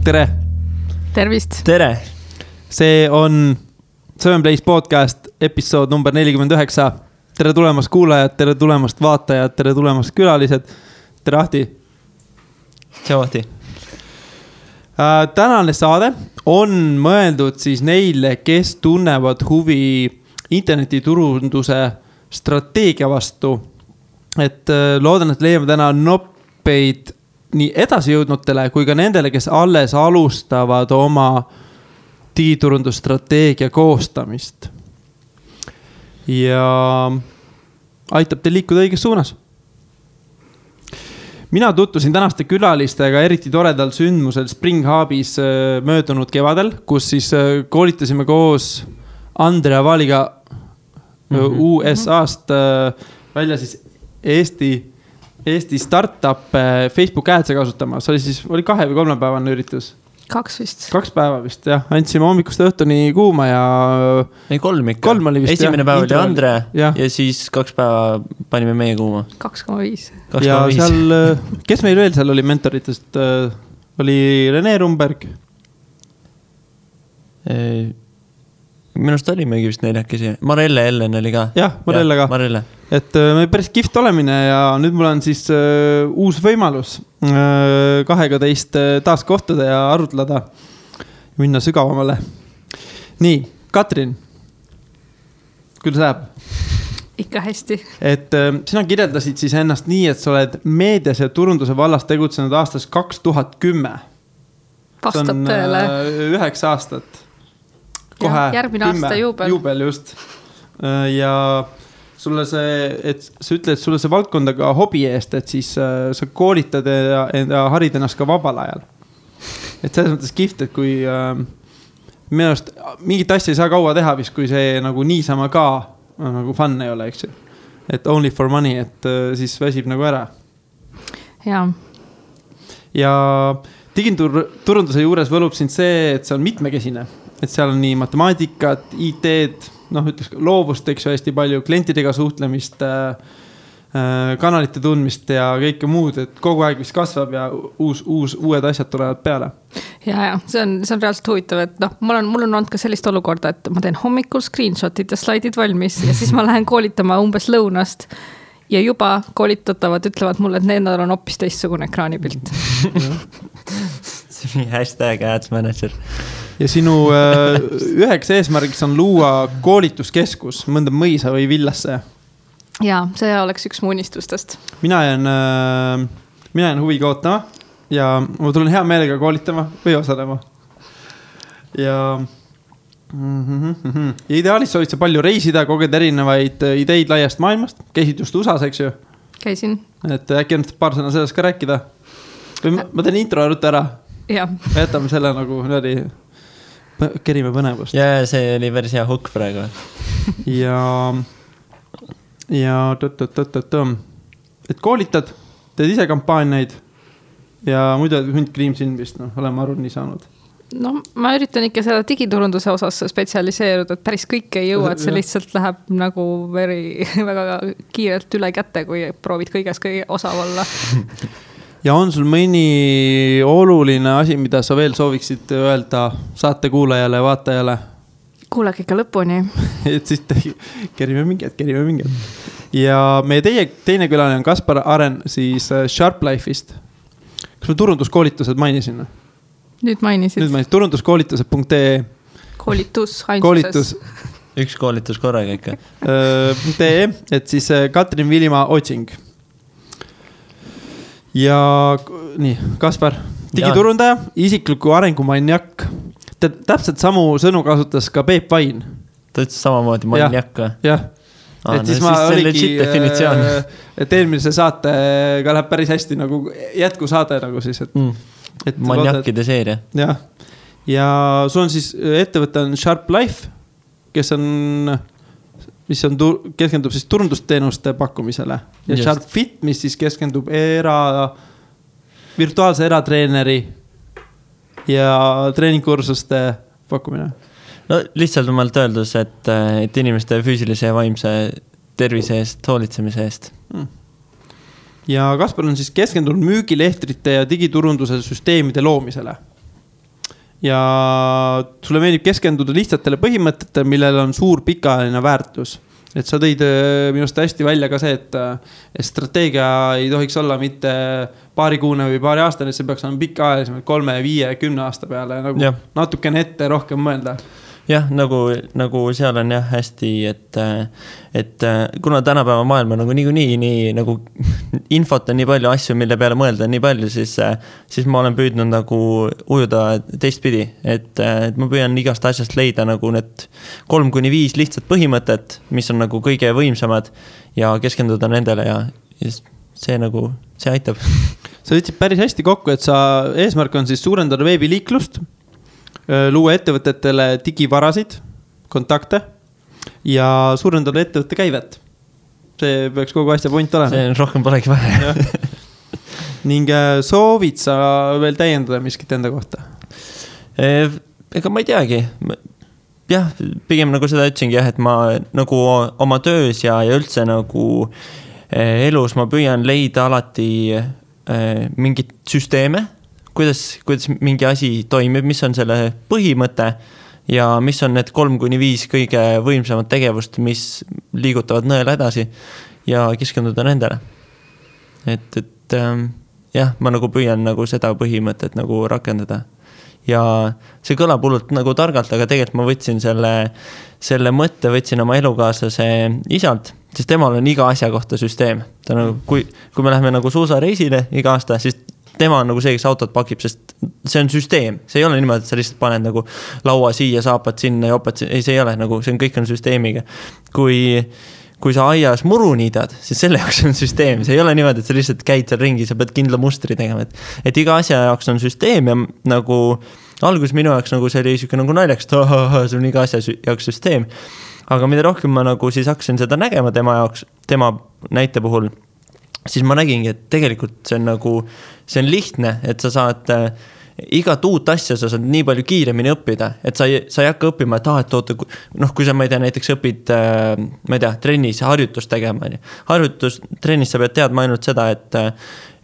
tere! Tervist! Tere! See on Seven Place podcast episood number 49. Tere tulemast kuulajad, tere tulemast vaatajad, tere tulemast külalised. Tere Ahti! Tšau Ahti! Tänane saade on mõeldud siis neile, kes tunnevad huvi internetiturunduse strateegia vastu. Et loodan, et leiame täna noppeid nii edasi jõudnutele kui ka nendele, kes alles alustavad oma digiturundusstrateegia koostamist. Ja aitab teil liikuda õiges suunas. Mina tutvusin tänaste külalistega eriti toredal sündmusel Spring Hubis möödunud kevadel, kus siis koolitasime koos Andrea Vaaliga USA-st välja siis Eesti startup Facebook Ads'e kasutama. See oli 2 või 3 päevane üritus. 2 vist. 2 päeva vist, jah. Andsime hommikust õhtuni kuuma ja... Ei, 3 ikka. 3 oli vist, esimene päev oli Andre ja siis 2 päeva panime meie kuuma. 2,5. Ja seal, kes meil veel seal oli mentoritest? Oli Rene Rumberg. Minust olimegi vist 4 Marelle Ellen oli ka. Jah, Marelle ka. Marelle. Et me päris kihvt olemine ja nüüd mul on siis uus võimalus 2 teist taas kohtuda ja arutleda ja minna sügavamale. Nii, Katrin, kuidas läheb? Ikka hästi. Et sina kirjeldasid siis ennast nii, et sa oled meedias ja turunduse vallas tegutsenud aastas 2010. Vastab tõele. 9 aastat. Kohe järgmine aasta juubel just. Ja sulle et sa ütled, et sulle see valdkonda ka hobi eest, et siis sa koolitad ja harid ennast ka vabal ajal. Et selles mõttes kihvt, et kui minu arust mingit asja ei saa kaua teha vist, kui see nagu niisama ka nagu fun ei ole, eks ju. Et only for money, et siis väsib nagu ära. Jaa. Ja digiturunduse juures võlub sind see, et see on mitmekesine. Et seal on nii matemaatikat, IT-d, ütles loovust, eks ju, hästi palju klientidega suhtlemist, kanalite tundmist ja kõike muud, et kogu aeg vist kasvab ja uued asjad tulevad peale. Ja, see on reaalselt huvitav, et mul on olnud ka sellist olukorda, et ma teen hommikul screenshotid ja slaidid valmis ja siis ma lähen koolitama umbes lõunast ja juba koolitatavad ütlevad mulle, et nendel on hoopis teistsugune ekraanipilt. See on hashtag ads manager. Ja sinu üheks eesmärgiks on luua koolituskeskus mõnda mõisa või villasse. Jaa, see oleks üks mu unistustest. Mina jään huviga ootama ja ma tulen hea meelega koolitama või osalema. Ja ideaalis soovid sa palju reisida, koged erinevaid ideid laiast maailmast. Käisid just USAs, eks ju? Käisin. Et äkki on paar sõna sellest ka rääkida. Või ma teen intro rutta ära. Jah. Jätame selle nagu kerime põnevust. Ja see oli päris hea hukk praegu. Ja et koolitad, teed ise kampaaniaid ja muidu hunt kriimsin vist, oleme aru nii saanud. Ma üritan ikka seda digiturunduse osas spetsialiseeruda, et päris kõik ei jõua, et see lihtsalt läheb nagu väga kiirelt üle kätte, kui proovid kõiges kõige osav olla. Ja on sul mõni oluline asi, mida sa veel sooviksid öelda saate kuulajale ja vaatajale? Kuulake ikka lõpuni. Et siis kerime mingid. Ja meie teine külaline on Kaspar Aren siis Sharp Life'ist. Kas me turunduskoolitused mainisin? Nüüd mainisid. Turunduskoolitused.ee Koolitus, ainsuses. Üks koolitus korraga ikka. .ee, et siis Katrin Vilimaa otsing. Ja nii, Kaspar, digiturundaja, isikliku arengumaniak. Täpselt samu sõnu kasutas ka Peep Vain. Ta ütles samamoodi maniak või? Jah. Et siis ma oligi, et eelmise saatega läheb päris hästi nagu jätkusaade nagu siis. Et maniakide seeria. Jah. Ja sul on siis ettevõte on Sharp Life, mis keskendub siis turundusteenuste pakkumisele. Ja just. Sharp Fit, mis siis keskendub virtuaalse eratreeneri ja treeningkursuste pakkumine. No lihtsalt omalt öeldus, et inimeste füüsilise ja vaimse tervise eest, hoolitsemise eest. Ja Kaspar on siis keskendunud müügilehtrite ja digiturunduse süsteemide loomisele. ja sulle meeldib keskenduda lihtsatele põhimõtetele, millel on suur pikaajaline väärtus. Et sa tõid minust hästi välja ka see, et strateegia ei tohiks olla mitte paarikuune või paari aastane, see peaks olema pikaajalisemalt 3, 5, 10 aasta peale nagu natukene ette rohkem mõelda. Jah, nagu seal on jah hästi, et kuna tänapäeva maailma nagu nii nagu infot on nii palju asju, mille peale mõelda nii palju, siis ma olen püüdnud nagu ujuda teistpidi, et ma püüan igast asjast leida nagu need 3-5 lihtsat põhimõtet, mis on nagu kõige võimsamad ja keskenduda nendele ja see aitab. Sa võtsid päris hästi kokku, et sa eesmärk on siis suurendada veebiliiklust, luua ettevõtetele digivarasid, kontakte ja suurendada ettevõtte käivet. See peaks kogu asja point olema. See rohkem polegi vaja. Ning soovid sa veel täiendada miskit enda kohta? Ega ma ei teagi. Jah, pigem nagu seda ütsingi jah, et ma nagu oma töös ja üldse nagu elus ma püüan leida alati mingit süsteeme, kuidas mingi asi toimib, mis on selle põhimõte ja mis on need 3-5 kõige võimsamad tegevust, mis liigutavad nõela edasi ja keskenduda nendele. Et jah, ma nagu püüan nagu seda põhimõtet nagu rakendada. Ja see kõlab hullult nagu targalt, aga tegelikult ma võtsin selle mõtte võtsin oma elukaaslase isalt, sest temal on iga asja kohta süsteem. Ta nagu, kui me läheme nagu suusareisile iga aasta, siis tema on nagu see, kes autot pakib, sest see on süsteem. See ei ole niimoodi, et sa lihtsalt paned nagu laua siia, saapad sinna ja opad sinna. Ei, see ei ole nagu, see on kõik on süsteemiga. Kui sa aias muru niidad, siis selle jaoks on süsteem. See ei ole niimoodi, et sa lihtsalt käid seal ringi, sa pead kindla mustri tegema. Et iga asja jaoks on süsteem ja nagu alguses minu jaoks nagu see oli siuke nagu naljaks, et see on iga asja jaoks süsteem. Aga mida rohkem ma nagu siis hakkasin seda nägema tema jaoks, tema näite puhul, siis ma nägingi, et tegelikult see on nagu, see on lihtne, et sa saad igat uut asja sa saad nii palju kiiremini õppida, et sa ei hakka õppima, et kui sa, ma ei tea, näiteks õpid, ma ei tea, trennis harjutust tegema. Trennis sa pead teadma ainult seda,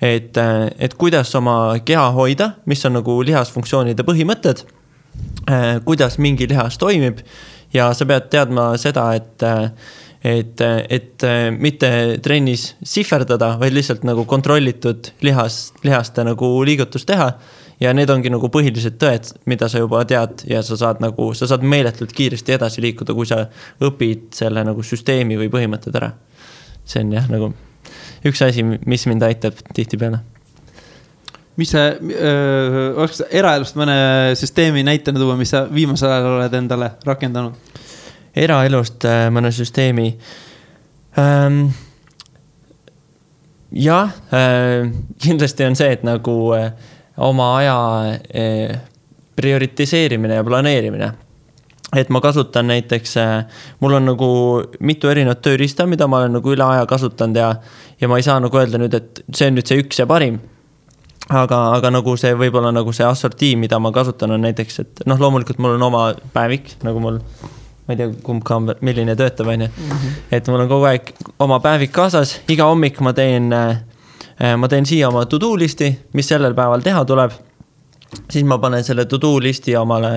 et kuidas oma keha hoida, mis on nagu lihasfunktsioonide põhimõtted, kuidas mingi lihas toimib ja sa pead teadma seda, et mitte trennis sihverdada, vaid lihtsalt nagu kontrollitud lihaste nagu liigutust teha ja need ongi nagu põhilised tõed, mida sa juba tead ja sa saad meeletult kiiresti edasi liikuda, kui sa õpid selle nagu süsteemi või põhimõtted ära. See on jah nagu üks asi, mis mind aitab tihti peale. Mis see, oleks eraelust mõne süsteemi näitena tuua, mis sa viimasel ajal oled endale rakendanud? Eraelust mõne süsteemi. Kindlasti on see, et nagu oma aja prioritiseerimine ja planeerimine. Et ma kasutan näiteks, mul on nagu mitu erinevat tööriista, mida ma olen nagu üle aja kasutanud ja ma ei saa nagu öelda nüüd, et see on nüüd see üks ja parim. Aga nagu see võib-olla nagu see assortii, mida ma kasutan on näiteks, et loomulikult mul on oma päevik, nagu mul ma ei tea, kumb ka on, milline töötab, on ju. Et mul on kogu aeg oma päevik kaasas, iga hommik ma teen siia oma to-do listi, mis sellel päeval teha tuleb. Siis ma panen selle to-do listi omale,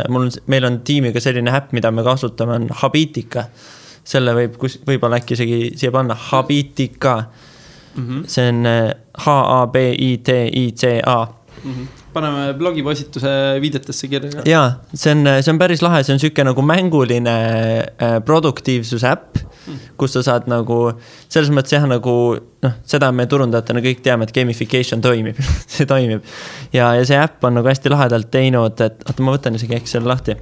meil on tiimiga selline äpp, mida me kasutame, on Habitica. Selle võib-olla äkki isegi siia panna Habitica. See on H-A-B-I-T-I-C-A. Paneme blogipostituse viidetesse kirja. Jaa, see on päris lahe, see on selline nagu mänguline produktiivsuse äpp, kus sa saad nagu, selles mõttes jah, nagu, seda me turundajatena kõik teame, et gamification toimib, see toimib. Ja see äpp on nagu hästi lahedalt teinud, et ma võtan isegi äkki selle lahti.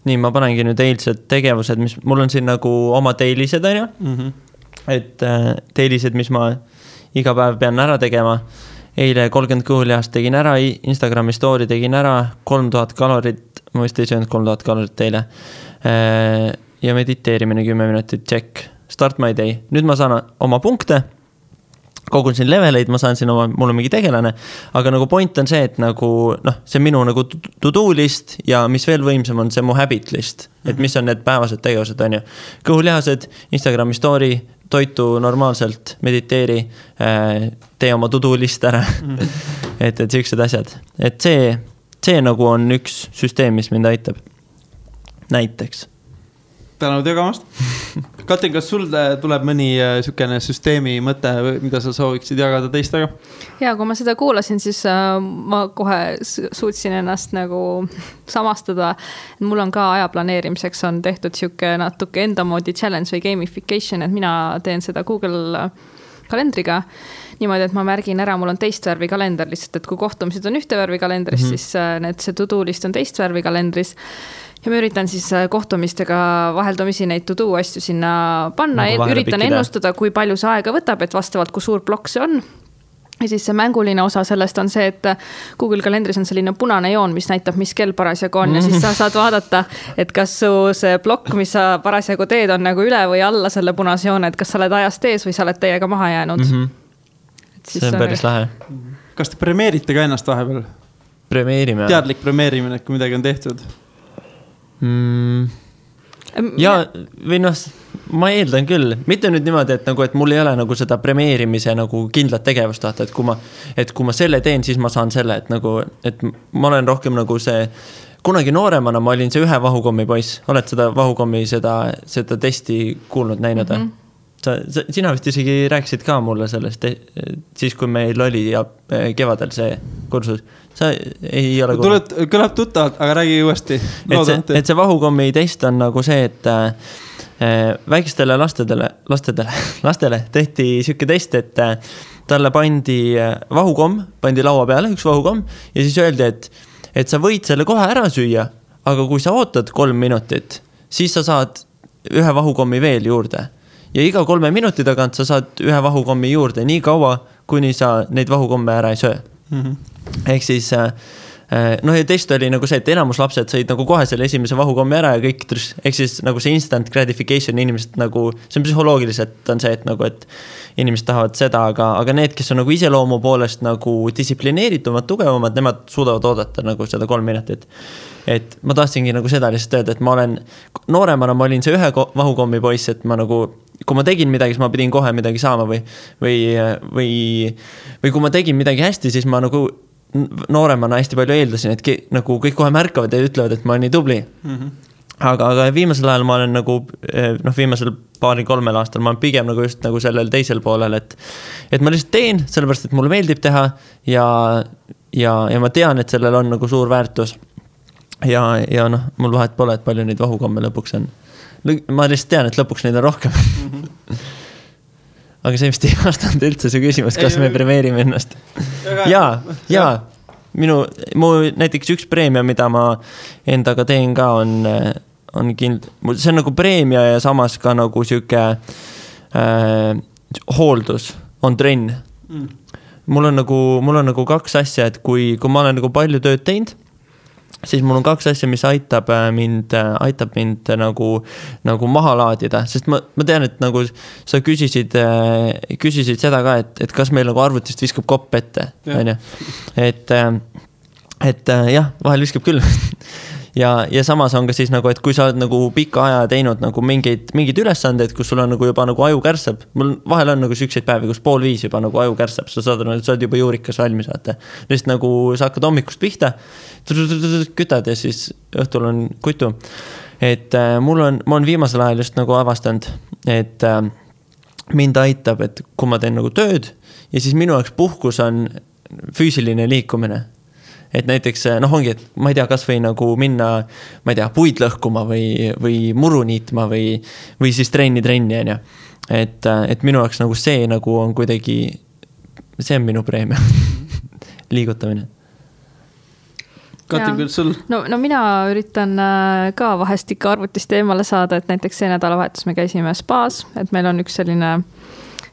Nii, ma panengi nüüd eilsed tegevused, mis mul on siin nagu oma teilised, on ju? Et teilised, mis ma iga päev pean ära tegema. Eile 30 kõhuljast tegin ära, Instagrami story tegin ära, 3000 kalorit, ma vist ei söönud 3000 kalorit teile. Ja mediteerimine 10 minutit, check. Start my day. Nüüd ma saan oma punkte, kogun siin leveleid, ma saan siin mul on mingi tegelane, aga nagu point on see, et nagu, see on minu nagu to-do list ja mis veel võimsam on see mu habit list, et mis on need päevased tegevused, on ju. Kõhuljahased, Instagrami story, toitu normaalselt, mediteeri, tee oma to-do list ära. Et sellised asjad. Et see see nagu on üks süsteem, mis mind aitab. Näiteks. Tänud jagamast. Katrin, kas sul tuleb mõni sükene süsteemi mõte, mida sa sooviksid jagada teistega? Ja kui ma seda kuulasin, siis ma kohe suutsin ennast nagu samastada. Mul on ka aja planeerimiseks on tehtud siuke natuke enda moodi challenge või gamification, et mina teen seda Google kalendriga. Niimoodi, et ma märgin ära, mul on teist värvi kalender lihtsalt, et kui kohtumisid on ühte värvi kalendris, siis see to-do list on teist värvi kalendris. Ja ma üritan siis kohtumistega vaheldumisi neid to-do asju sinna panna, nagu üritan ennustada, kui palju see aega võtab, et vastavalt, kui suur plokk see on. Ja siis see mänguline osa sellest on see, et Google kalendris on selline punane joon, mis näitab, mis kell parasjagu on ja siis sa saad vaadata, et kas su see plokk, mis sa parasjagu teed, on nagu üle või alla selle punase joone, et kas sa oled ajast ees või sa oled täiega maha jäänud. See on päris lahe. Kas te premeerite ka ennast vahepeal? Premeerime. Teadlik premeerimine, kui midagi on tehtud? Ja või noh, ma eeldan küll, mitte nüüd niimoodi, et mul ei ole nagu seda premeerimise nagu kindlat tegevust tahta, et kui ma selle teen, siis ma saan selle, et ma olen rohkem nagu see, kunagi nooremana ma olin see ühe vahukommi poiss, oled seda vahukommi seda testi kuulnud, näinud? Sina vist isegi rääkisid ka mulle sellest, siis kui meil oli ja kevadel see kursus. Sa ei ole kõlab tuttavalt, aga räägi uuesti. Et see vahukommi test on nagu see, et väikestele lastele tehti siuke test, et talle pandi vahukomm, pandi laua peale, üks vahukomm, ja siis öeldi, et sa võid selle kohe ära süüa, aga kui sa ootad 3 minutit, siis sa saad ühe vahukommi veel juurde. Ja iga 3 minuti tagant sa saad ühe vahukommi juurde nii kaua, kuni sa neid vahukomme ära ei söö. Ehk siis, ja test oli nagu see, et enamus lapsed said nagu kohe selle esimese vahukommi ära ja kõik, ehk siis nagu see instant gratification inimesed nagu, see on psühholoogiliselt on see, et nagu, et inimesed tahavad seda, aga need, kes on nagu iseloomu poolest nagu distsiplineeritumad, tugevamad, nemad suudavad oodata nagu seda 3 minutit. Et ma tahtsingi nagu seda lihtsalt öelda, et ma olen nooremana, ma olin see ühe vahukommi poiss, et ma nagu, kui ma tegin midagi, siis ma pidin kohe midagi saama või kui ma tegin midagi hästi, siis ma nagu nooremana hästi palju eeldasin, et nagu kõik kohe märkavad ja ütlevad, et ma olen nii tubli. Aga viimasel ajal ma olen nagu, viimasel 2-3 aastal ma olen pigem nagu just nagu sellel teisel poolel, et ma lihtsalt teen, sellepärast, et mulle meeldib teha ja ma tean, et sellel on nagu suur väärtus. Ja mul vahet pole, et palju neid vahukomme lõpuks on. Ma lihtsalt tean, et lõpuks neid on rohkem. Aga see vist ei vastanud üldse su küsimus, kas me premeerime ennast. Ja, mu näiteks üks preemia, mida ma endaga teen ka, on see on nagu preemia ja samas ka nagu siuke hooldus, on trenn. Mul on nagu 2 asja, et kui ma olen nagu palju tööd teinud, siis mul on 2 asja, mis aitab mind nagu maha laadida, sest ma tean, et nagu sa küsisid seda ka, et kas meil nagu arvutist viskab kopp ette, et jah, vahel viskab küll. Ja samas on ka siis nagu, et kui sa oled nagu pika aja teinud nagu mingeid ülesandeid, kus sul on nagu juba nagu aju kärsab, mul vahel on nagu sükseid päevi, kus 4:30 juba nagu aju kärsab, sa saad juba juurikas valmis vaata. Lihtsalt nagu sa hakkad hommikust pihta, kütad ja siis õhtul on kutu. Et ma on viimasel ajal just nagu avastanud, et mind aitab, et kui ma teen nagu tööd ja siis minu jaoks puhkus on füüsiline liikumine. Et näiteks, ongi, et ma ei tea, kas või nagu minna, ma ei tea, puid lõhkuma või muru niitma või siis trenni, on ja. Et minu jaoks nagu see nagu on kuidagi, see on minu preemia, liigutamine. Katri, küll sul? No mina üritan ka vahest ikka arvutist eemale saada, et näiteks see nädalavahetus me käisime spaas, et meil on üks selline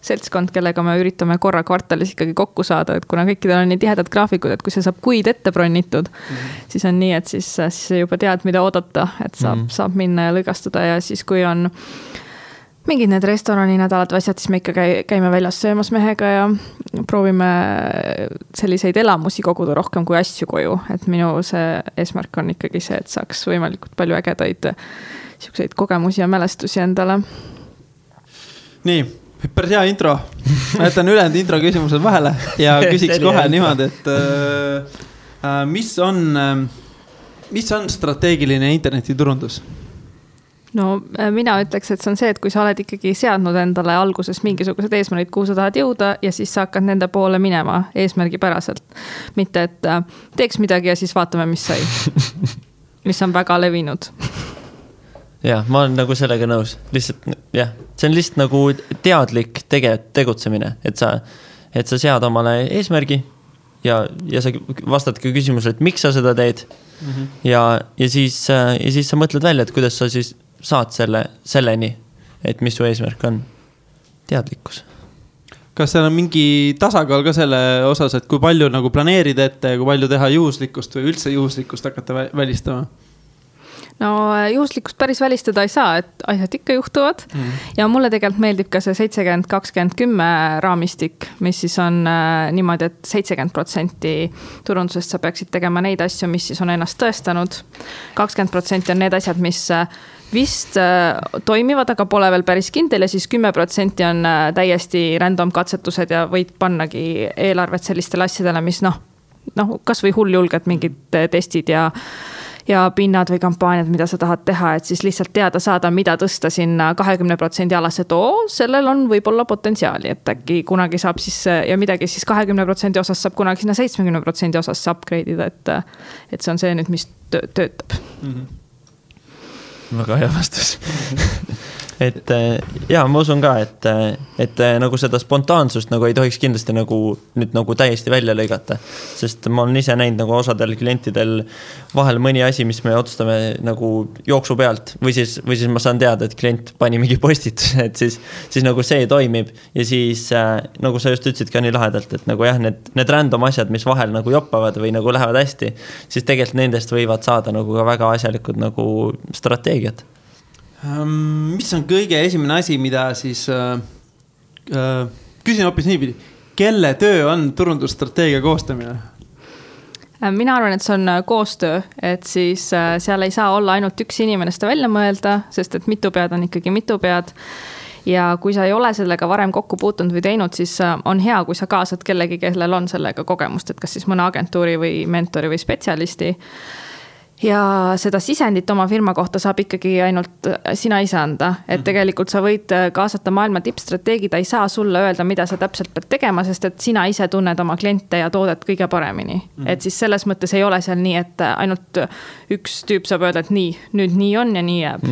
seltskond, kellega me üritame korra kvartalis ikkagi kokku saada, et kuna kõikidel on nii tihedad graafikud, et kui see saab kuid ette bronnitud, siis on nii, et siis juba tead, mida oodata, et saab minna ja lõigastuda ja siis kui on mingid need restorani nädalad või asjad, siis me ikka käime väljas söömas mehega ja proovime selliseid elamusi koguda rohkem kui asju koju, et minu see eesmärk on ikkagi see, et saaks võimalikult palju ägedaid siukseid kogemusi ja mälestusi endale. Nii, päris hea intro. Ma jätan ülejäänud intro küsimused vahele ja küsiks kohe niimoodi, et mis on strateegiline internetiturundus? No mina ütleks, et see on see, et kui sa oled ikkagi seadnud endale alguses mingisugused eesmärgid, kuhu sa tahad jõuda ja siis sa hakkad nende poole minema eesmärgipäraselt. Mitte, et teeks midagi ja siis vaatame, mis sai. Mis on väga levinud. Jah, ma olen nagu sellega nõus. Lihtsalt, jah, see on lihtsalt nagu teadlik tegutsemine, et sa sead omale eesmärgi ja sa vastad ka küsimusele, et miks sa seda teed. Ja siis sa mõtled välja, et kuidas sa siis saad selleni, et mis su eesmärk on. Teadlikkus. Kas seal on mingi tasakaal ka selle osas, et kui palju nagu planeerida ette ja kui palju teha juhuslikkust või üldse juhuslikkust hakata välistama? No juhuslikkust päris välistada ei saa, et asjad ikka juhtuvad. Ja mulle tegelikult meeldib ka see 70-20-10 raamistik, mis siis on niimoodi, et 70% turundusest sa peaksid tegema neid asju, mis siis on ennast tõestanud. 20% on need asjad, mis vist toimivad, aga pole veel päris kindel ja siis 10% on täiesti random katsetused ja võid pannagi eelarvet sellistele asjadele, mis kas või hulljulged mingid testid ja pinnad või kampaaniad, mida sa tahad teha, et siis lihtsalt teada saada, mida tõsta sinna 20% alas, et sellel on võib-olla potentsiaali, et äkki kunagi saab siis ja midagi siis 20% osas saab kunagi sinna 70% osas upgrade ida, et see on see nüüd, mis töötab. Väga hea vastus. Et ma usun ka, et nagu seda spontaansust nagu ei tohiks kindlasti nüüd täiesti välja lõigata, sest ma olen ise näinud nagu osadel klientidel vahel mõni asi, mis me otsustame nagu jooksu pealt või siis ma saan teada, et klient pani mingi postituse, et siis nagu see toimib ja siis nagu sa just ütlesid ka nii lahedalt, et nagu jah, need random asjad, mis vahel nagu joppavad või nagu lähevad hästi, siis tegelikult nendest võivad saada nagu ka väga asjalikud nagu strateegiad. Mis on kõige esimene asi, mida siis küsin hoopis niipidi, kelle töö on turundusstrateegia koostamine? Mina arvan, et see on koostöö, et siis seal ei saa olla ainult üks inimene seda välja mõelda, sest et mitu pead on ikkagi mitu pead. Ja kui sa ei ole sellega varem kokku puutunud või teinud, siis on hea, kui sa kaasad kellegi, kellel on sellega kogemust, et kas siis mõne agentuuri või mentori või spetsialisti. Ja seda sisendit oma firma kohta saab ikkagi ainult sina ise anda, et tegelikult sa võid kaasata maailma tippstrateegi, ta ei saa sulle öelda, mida sa täpselt pead tegema, sest et sina ise tunned oma kliente ja toodet kõige paremini. Et siis selles mõttes ei ole seal nii, et ainult üks tüüp saab öelda, et nüüd nii on ja nii jääb.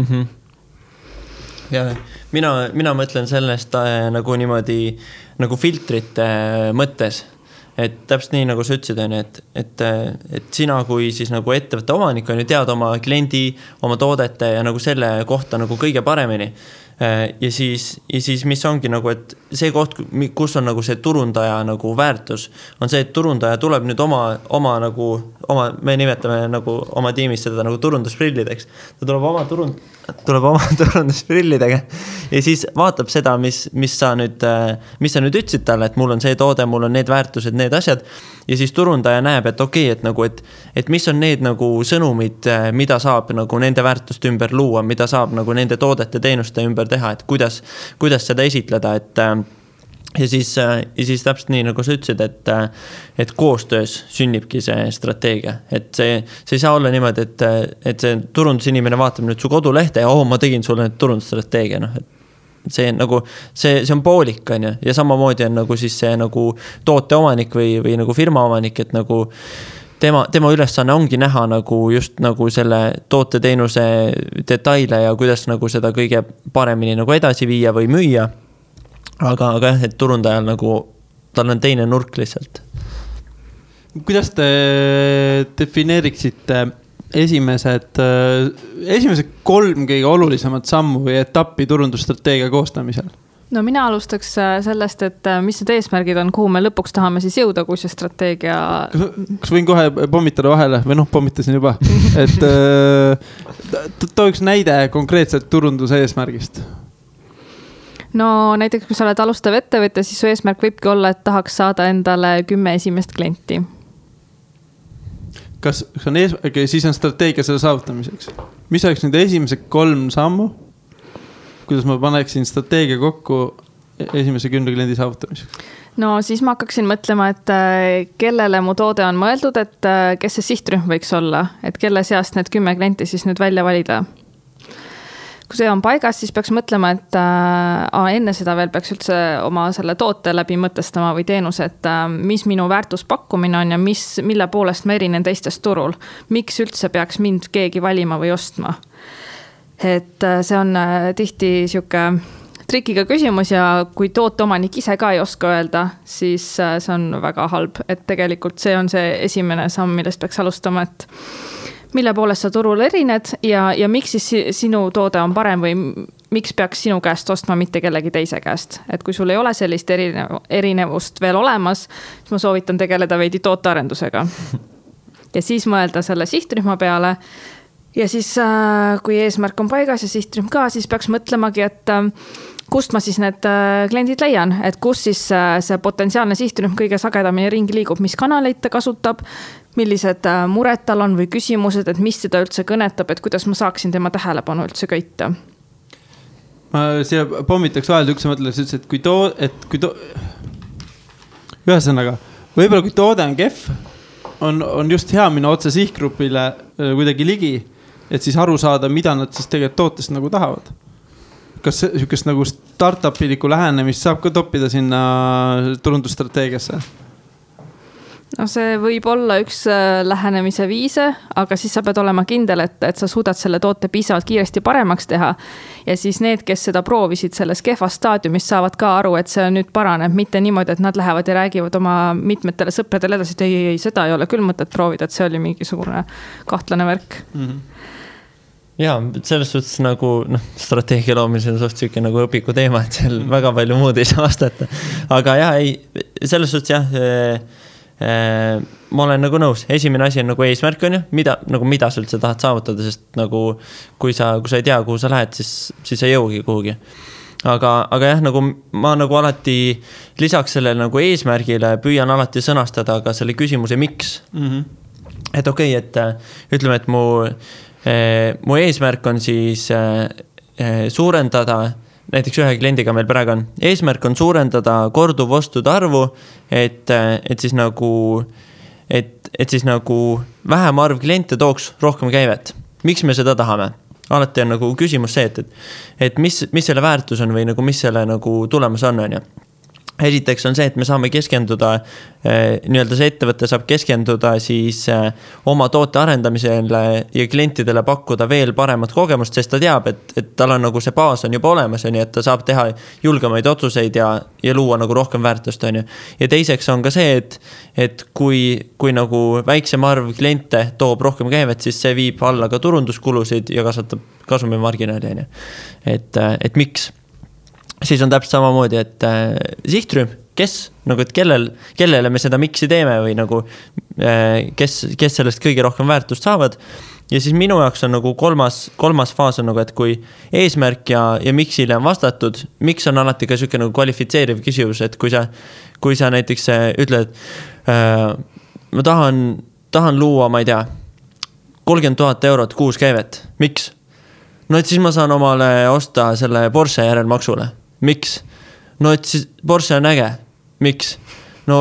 Ja mina mõtlen sellest nagu niimoodi nagu filtrite mõttes. Et täpselt nii, nagu sa ütlesid, on, et sina kui siis nagu ettevõtte omanik on ju tead oma kliendi, oma toodete ja nagu selle kohta nagu kõige paremini. Ja siis mis ongi nagu, et see koht, kus on nagu see turundaja nagu väärtus, on see, et turundaja tuleb nüüd me nimetame nagu oma tiimis seda nagu turundusprillideks. Ta tuleb oma turundusprillidega ja siis vaatab seda, mis sa nüüd ütlesid talle, et mul on see toode, mul on need väärtused, need asjad ja siis turundaja näeb, et okei, et mis on need nagu sõnumid, mida saab nagu nende väärtuste ümber luua, mida saab nagu nende toodete teenuste ümber teha, et kuidas seda esitleda, ja siis täpselt nii, nagu sa ütlesid, et koostöös sünnibki see strateegia, et see ei saa olla niimoodi, et see turundusinimene vaatab nüüd su kodulehte ja ma tegin sulle nüüd turundusstrateegia, see on poolik, on ju, ja samamoodi on nagu siis see nagu toote omanik või nagu firma omanik, et nagu tema ülesanne ongi näha nagu just nagu selle toote teenuse detaile ja kuidas nagu seda kõige paremini nagu edasi viia või müüa. Aga jah, et turundajal nagu tal on teine nurk lihtsalt. Kuidas te defineeriksite esimesed 3 kõige olulisemat sammu või etappi turundusstrateegia koostamisel? No mina alustaks sellest, et mis need eesmärgid on, kuhu me lõpuks tahame siis jõuda, kui see strateegia... Kas võin kohe pommitada vahele või pommitasin juba, et tooks näide konkreetselt turunduse eesmärgist? No näiteks, kui sa oled alustav ettevõte, siis su eesmärk võibki olla, et tahaks saada endale 10 esimest klienti. Kas on siis on strateegia selle saavutamiseks? Mis oleks nüüd esimesed 3 sammu? Kuidas ma paneksin strateegia kokku esimese 10 kliendi saavutamiseks? no siis ma hakkaksin mõtlema, et kellele mu toode on mõeldud, et kes see sihtrühm võiks olla, et kelle seast need 10 klienti siis nüüd välja valida. Kui see on paigas, siis peaks mõtlema, et enne seda veel peaks üldse oma selle toote läbi mõtestama või teenuse, et mis minu väärtuspakkumine on ja mille poolest ma erinen teistest turul. Miks üldse peaks mind keegi valima või ostma? Et see on tihti siuke trikiga küsimus ja kui tooteomanik ise ka ei oska öelda, siis see on väga halb, et tegelikult see on see esimene samm, millest peaks alustama, et mille poolest sa turul erined ja miks siis sinu toode on parem või miks peaks sinu käest ostma mitte kellegi teise käest. Et kui sul ei ole sellist erinevust veel olemas, siis ma soovitan tegeleda veidi tootearendusega. Ja siis mõelda selle sihtrühma peale ja siis kui eesmärk on paigas ja sihtrühm ka, siis peaks mõtlemagi, et kust ma siis need kliendid leian, et kus siis see potentsiaalne sihtrühm kõige sagedamini ringi liigub, mis kanaleid ta kasutab, millised mured tal on või küsimused, et mis seda üldse kõnetab, et kuidas ma saaksin tema tähelepanu üldse köita. Ma siia pommitaks vahel üks mõtles, et kui ühesõnaga, võib-olla kui toode on kehv, on just hea minna otse sihtgrupile kuidagi ligi, et siis aru saada, mida nad siis tegelikult tootest nagu tahavad. Kas sihukest nagu startup-iliku lähenemist saab ka toppida sinna turundusstrateegiasse? No see võib olla üks lähenemise viise, aga siis sa pead olema kindel, et sa suudad selle toote piisavalt kiiresti paremaks teha. Ja siis need, kes seda proovisid selles kehvas staadiumis, saavad ka aru, et see nüüd paraneb, mitte niimoodi, et nad lähevad ja räägivad oma mitmetele sõpradele edasi, et ei, seda ei ole küll mõtet proovida, et see oli mingisugune kahtlane värk. Ja selles suhtes nagu strateegia loomisel on suht siuke nagu õpiku teema, et seal väga palju muud ei saa vastata. Aga jah, selles suhtes jah, ma olen nagu nõus. Esimene asi on nagu eesmärk on ju, mida sa üldse tahad saavutada, sest nagu kui sa ei tea, kuhu sa lähed, siis ei jõugi kuhugi. Aga jah, nagu ma nagu alati lisaks sellele nagu eesmärgile püüan alati sõnastada ka selle küsimuse miks. Et okei, et ütleme, et mu eesmärk on siis suurendada, näiteks ühe kliendiga meil praegu on, eesmärk on suurendada korduvostude arvu, et siis nagu vähem arv kliente tooks rohkem käivet. Miks me seda tahame? Alati on nagu küsimus see, et mis selle väärtus on või nagu mis selle nagu tulemus on ju. Esiteks on see, et me saame keskenduda, nii-öelda see ettevõte saab keskenduda siis oma toote arendamisele ja klientidele pakkuda veel paremat kogemust, sest ta teab, et tal on nagu see baas on juba olemas, nii et ta saab teha julgemaid otsuseid ja luua nagu rohkem väärtust. Ja teiseks on ka see, et kui nagu väiksem arv kliente toob rohkem käivet, siis see viib alla ka turunduskulusid ja kasvatab kasumimarginaali. Et miks? Siis on täpselt samamoodi, et sihtrühm, kes, nagu, et kellele me seda miksi teeme või nagu, kes sellest kõige rohkem väärtust saavad. Ja siis minu jaoks on nagu kolmas faas on nagu, et kui eesmärk ja miksile on vastatud, miks on alati ka siuke nagu kvalifitseeriv küsimus, et kui sa näiteks ütled, ma tahan luua, ma ei tea, 30 000 eurot kuus käivet. Miks? No et siis ma saan omale osta selle Porsche järelmaksule. Miks? No et siis Porsche on äge. Miks? No,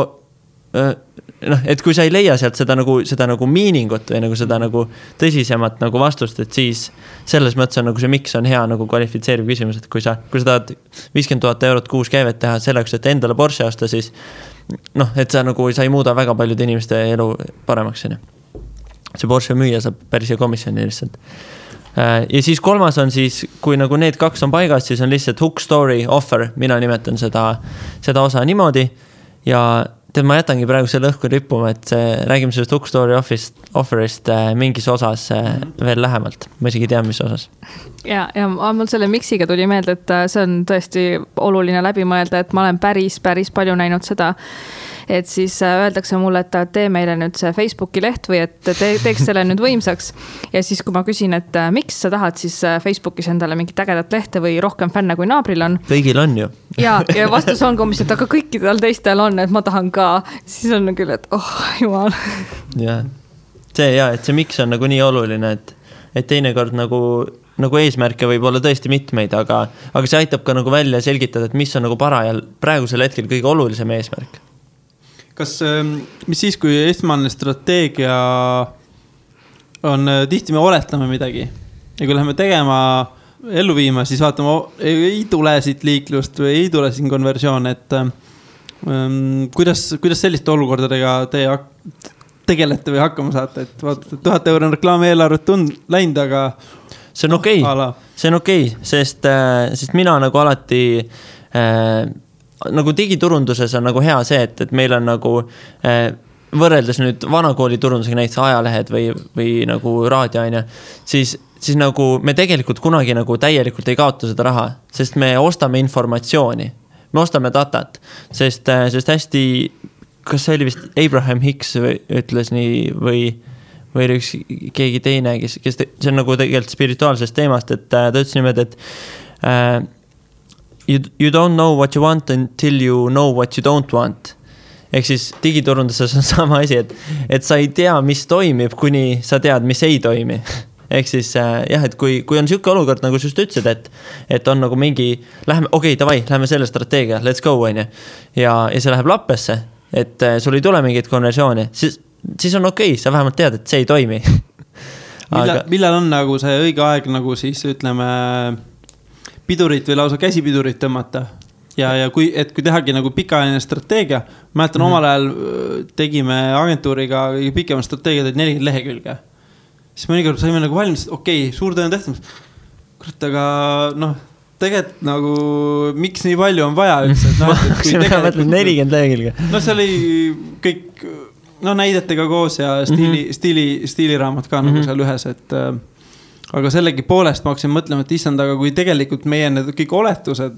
et kui sa ei leia sealt seda nagu miiningut või nagu seda nagu tõsisemat nagu vastust, et siis selles mõttes on nagu see miks on hea nagu kvalifitseeriv küsimus, et kui sa tahad 50 000 eurot kuus käivet teha selleks, et endale Porsche osta, siis et sa ei muuda väga paljude inimeste elu paremaks. See Porsche müüja saab päris hea komisjoni lihtsalt. Ja siis kolmas on siis, kui nagu need kaks on paigas, siis on lihtsalt hook story offer. Mina nimetan seda osa niimoodi ja ma jätangi praegu selle õhku rippuma, et räägime sellest hook story offerist mingis osas veel lähemalt. Ma isegi tean, mis osas. Ja mul selle miksiga tuli meelde, et see on tõesti oluline läbi mõelda, et ma olen päris palju näinud seda, et siis öeldakse mulle, et tee meile nüüd see Facebooki leht või et teeks selle nüüd võimsaks. Ja siis, kui ma küsin, et miks sa tahad siis Facebookis endale mingit ägedat lehte või rohkem fänne kui naabril on. Kõigil on ju. Ja vastus on komisjon, et aga kõikidel teistel on, et ma tahan ka. Siis on küll, et jumal. Ja, et see miks on nagu nii oluline, et teinekord nagu nagu eesmärke võib olla tõesti mitmeid, aga see aitab ka nagu välja selgitada, et mis on nagu parajal praegusel hetkel kõige olulisem eesmärk. Kas, mis siis, kui esmane strateegia on, tihti me oletame midagi ja kui läheme tegema, ellu viima, siis vaatame, ei tule siit liiklust või ei tule siin konversioon, et kuidas selliste olukordadega teie tegelete või hakkama saate, et vaatate, 1000 € on reklaamieelarvet läinud, aga see on okei. See on okei, sest mina nagu alati nagu digiturunduses on nagu hea see, et meil on nagu võrreldes nüüd vanakooli turundusega näiteks ajalehed või nagu raadioaine, siis nagu me tegelikult kunagi nagu täielikult ei kaota seda raha, sest me ostame informatsiooni. Me ostame datat, sest hästi, kas see oli vist Abraham Hicks ütles nii või üks keegi teine, kes see on nagu tegelikult spirituaalsest teemast, et ta ütles niimoodi, et you don't know what you want until you know what you don't want. Ehk siis digiturunduses on sama asi, et sa ei tea, mis toimib, kuni sa tead, mis ei toimi. Ehk siis jah, et kui on siuke olukord, nagu just ütlesid, et on nagu mingi, lähme selle strateegia, let's go, on ju. Ja see läheb lappesse, et sul ei tule mingit konversiooni, siis on okei, sa vähemalt tead, et see ei toimi. Millal on nagu see õige aeg, nagu siis ütleme, pidurit või lausa käsipidurit tõmmata? Ja kui tehagi nagu pikaajaline strateegia, mäletan omal ajal tegime agentuuriga pikema strateegia, 40 lehekülge. Siis mõnikord saime nagu valmis, suur töö on tehtud. Kurat, aga tegelikult nagu, miks nii palju on vaja üldse? See mõtled 40 lehekülge. See oli kõik näidetega koos ja stiiliraamat ka nagu seal ühes, et aga sellegi poolest ma hakkasin mõtlema, et issand, aga kui tegelikult meie need kõik oletused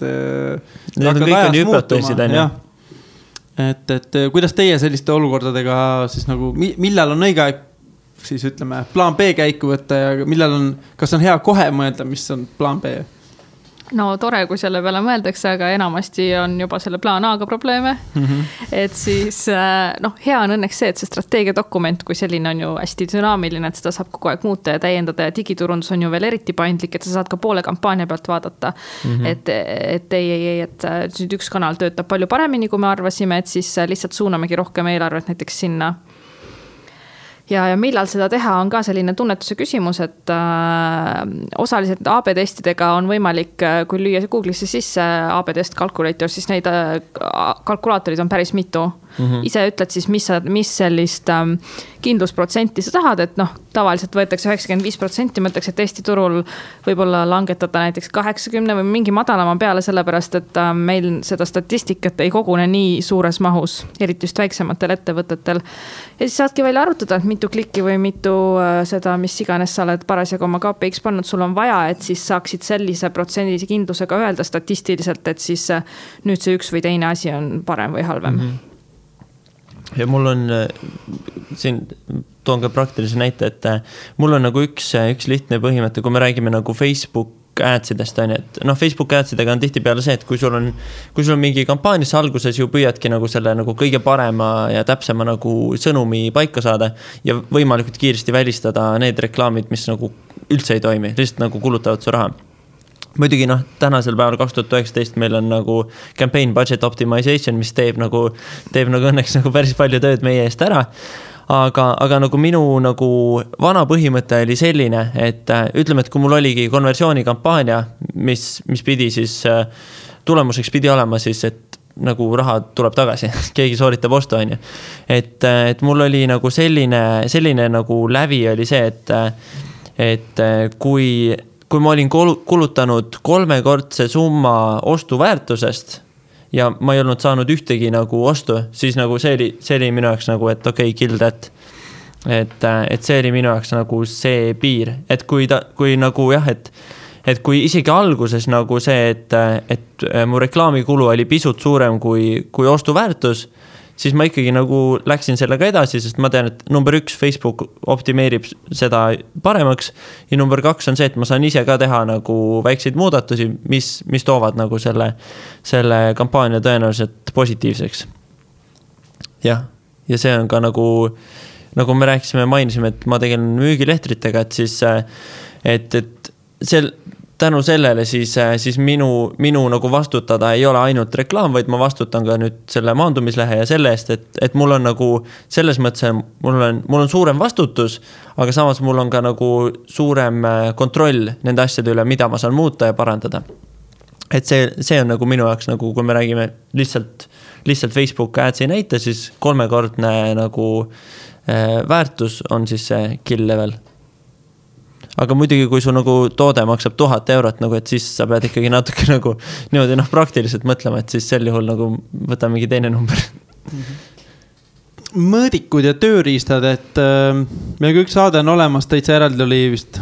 hakkavad ajas muutuma. Et kuidas teie selliste olukordadega siis nagu, millal on õige aeg siis ütleme, plaan B käiku võtta ja millal on, kas on hea kohe mõelda, mis on plaan B? No tore, kui selle peale mõeldakse, aga enamasti on juba selle plaan A-ga probleeme. Et siis, hea on õnneks see, et see strateegiadokument, kui selline on ju hästi dünaamiline, et seda saab kogu aeg muuta ja täiendada ja digiturundus on ju veel eriti paindlik, et sa saad ka poole kampaania pealt vaadata. Et nüüd üks kanal töötab palju paremini, kui me arvasime, et siis lihtsalt suunamegi rohkem eelarvet näiteks sinna. Ja millal seda teha on ka selline tunnetuse küsimus, et osaliselt AB-testidega on võimalik, kui lüüa Google'isse sisse AB-test calculator, siis neid kalkulaatorid on päris mitu. Ise ütled siis, mis sellist kindlusprotsenti sa tahad, et tavaliselt võetakse 95%, mõtleks, et Eesti turul võib-olla langetada näiteks 80 või mingi madalama peale, sellepärast, et meil seda statistikat ei kogune nii suures mahus, eriti just väiksematel ettevõtetel. Ja siis saadki välja arutada, et mitu klikki või mitu seda, mis iganes sa oled parasjagu oma KPX pannud, sul on vaja, et siis saaksid sellise protsendilise kindlusega öelda statistiliselt, et siis nüüd see üks või teine asi on parem või halvem. Ja mul on, siin toon ka praktilise näite, et mul on nagu üks lihtne põhimõte, kui me räägime nagu Facebook adsidest, et Facebook adsidega on tihti peale see, et kui sul on mingi kampaanias alguses ju püüadki nagu selle nagu kõige parema ja täpsema nagu sõnumi paika saada ja võimalikult kiiresti välistada need reklaamid, mis nagu üldse ei toimi, lihtsalt nagu kulutavad su raha. Muidugi tänasel päeval 2019 meil on nagu campaign budget optimization, mis teeb nagu õnneks nagu päris palju tööd meie eest ära. Aga nagu minu nagu vana põhimõte oli selline, et ütleme, et kui mul oligi konversioonikampaania, mis pidi siis tulemuseks pidi olema siis, et nagu raha tuleb tagasi, keegi sooritab ostu, on ju. Et mul oli nagu selline nagu lävi oli see, et kui ma olin kulutanud 3-kordse summa ostuväärtusest ja ma ei olnud saanud ühtegi nagu ostu, siis nagu see oli minu jaoks nagu, et kill that. Et see oli minu jaoks nagu see piir. Et kui nagu jah, et kui isegi alguses nagu see, et mu reklaamikulu oli pisut suurem kui ostuväärtus, siis ma ikkagi nagu läksin sellega edasi, sest ma tean, et number 1 Facebook optimeerib seda paremaks ja number 2 on see, et ma saan ise ka teha nagu väikseid muudatusi, mis toovad nagu selle kampaania tõenäoliselt positiivseks. Ja see on ka nagu me rääkisime, mainisime, et ma tegelen müügilehtritega, et siis et tänu sellele siis minu nagu vastutada ei ole ainult reklaam, vaid ma vastutan ka nüüd selle maandumislehe ja selle eest, et mul on nagu selles mõttes, mul on suurem vastutus, aga samas mul on ka nagu suurem kontroll nende asjade üle, mida ma saan muuta ja parandada. Et see on nagu minu jaoks nagu, kui me räägime lihtsalt Facebook ads ei näita, siis 3-kordne nagu väärtus on siis see kill level. Aga muidugi, kui su nagu toode maksab 1000 eurot, nagu, et siis sa pead ikkagi natuke nagu niimoodi praktiliselt mõtlema, et siis sel juhul nagu võta mingi teine number. Mõõdikud ja tööriistad, et meil kõik saade on olemas, täitsa eraldi oli vist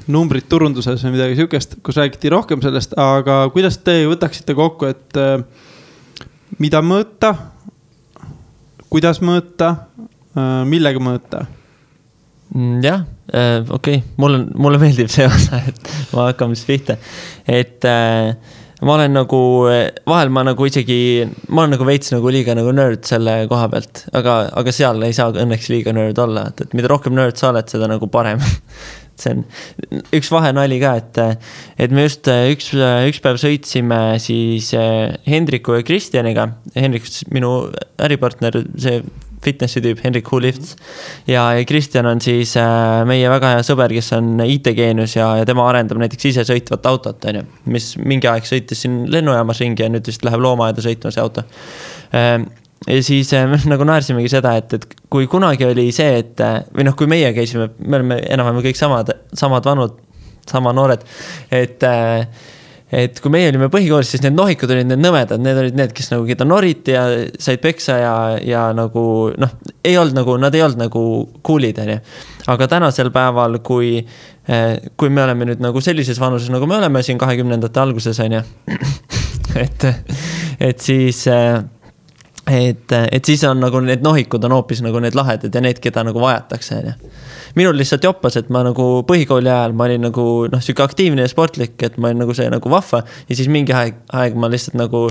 numbrid turunduses või midagi siukest, kus räägiti rohkem sellest, aga kuidas te võtaksite kokku, et mida mõõta, kuidas mõõta, millega mõõta? Jah, okei. Mulle meeldib see osa, et ma hakkame siis pihta. Et ma olen nagu, vahel ma nagu isegi, ma olen nagu veits nagu liiga nagu nerd selle koha pealt, aga seal ei saa õnneks liiga nerd olla, et mida rohkem nerd sa oled, seda nagu parem. See on üks vahenali ka, et me just üks päev sõitsime siis Hendriku ja Kristjaniga. Hendrik, minu äripartner, see fitnessi tüüp, Hendrik Who Lifts. Ja Kristjan on siis meie väga hea sõber, kes on IT-geenus ja tema arendab näiteks ise sõitvat autot, mis mingi aeg sõitis siin lennujaamas ringi ja nüüd vist läheb loomaaeda sõitma see auto. Ja siis me nagu naersimegi seda, et kui kunagi oli see, või kui meie käisime, me oleme enam-vähem kõik samad vanud, sama noored, et kui meie olime põhikoolis, siis need nohikud olid need nõmedad, need olid need, kes nagu keda noriti ja said peksa ja nagu, ei olnud nagu, nad ei olnud nagu coolid, aga tänasel päeval, kui me oleme nüüd nagu sellises vanuses, nagu me oleme siin 20-ndate alguses, et siis on nagu need nohikud on hoopis nagu need lahedad ja need, keda nagu vajatakse, Minul lihtsalt joppas, et ma nagu põhikooli ajal ma olin nagu siuke aktiivne ja sportlik, et ma olin nagu see nagu vahva ja siis mingi aeg ma lihtsalt nagu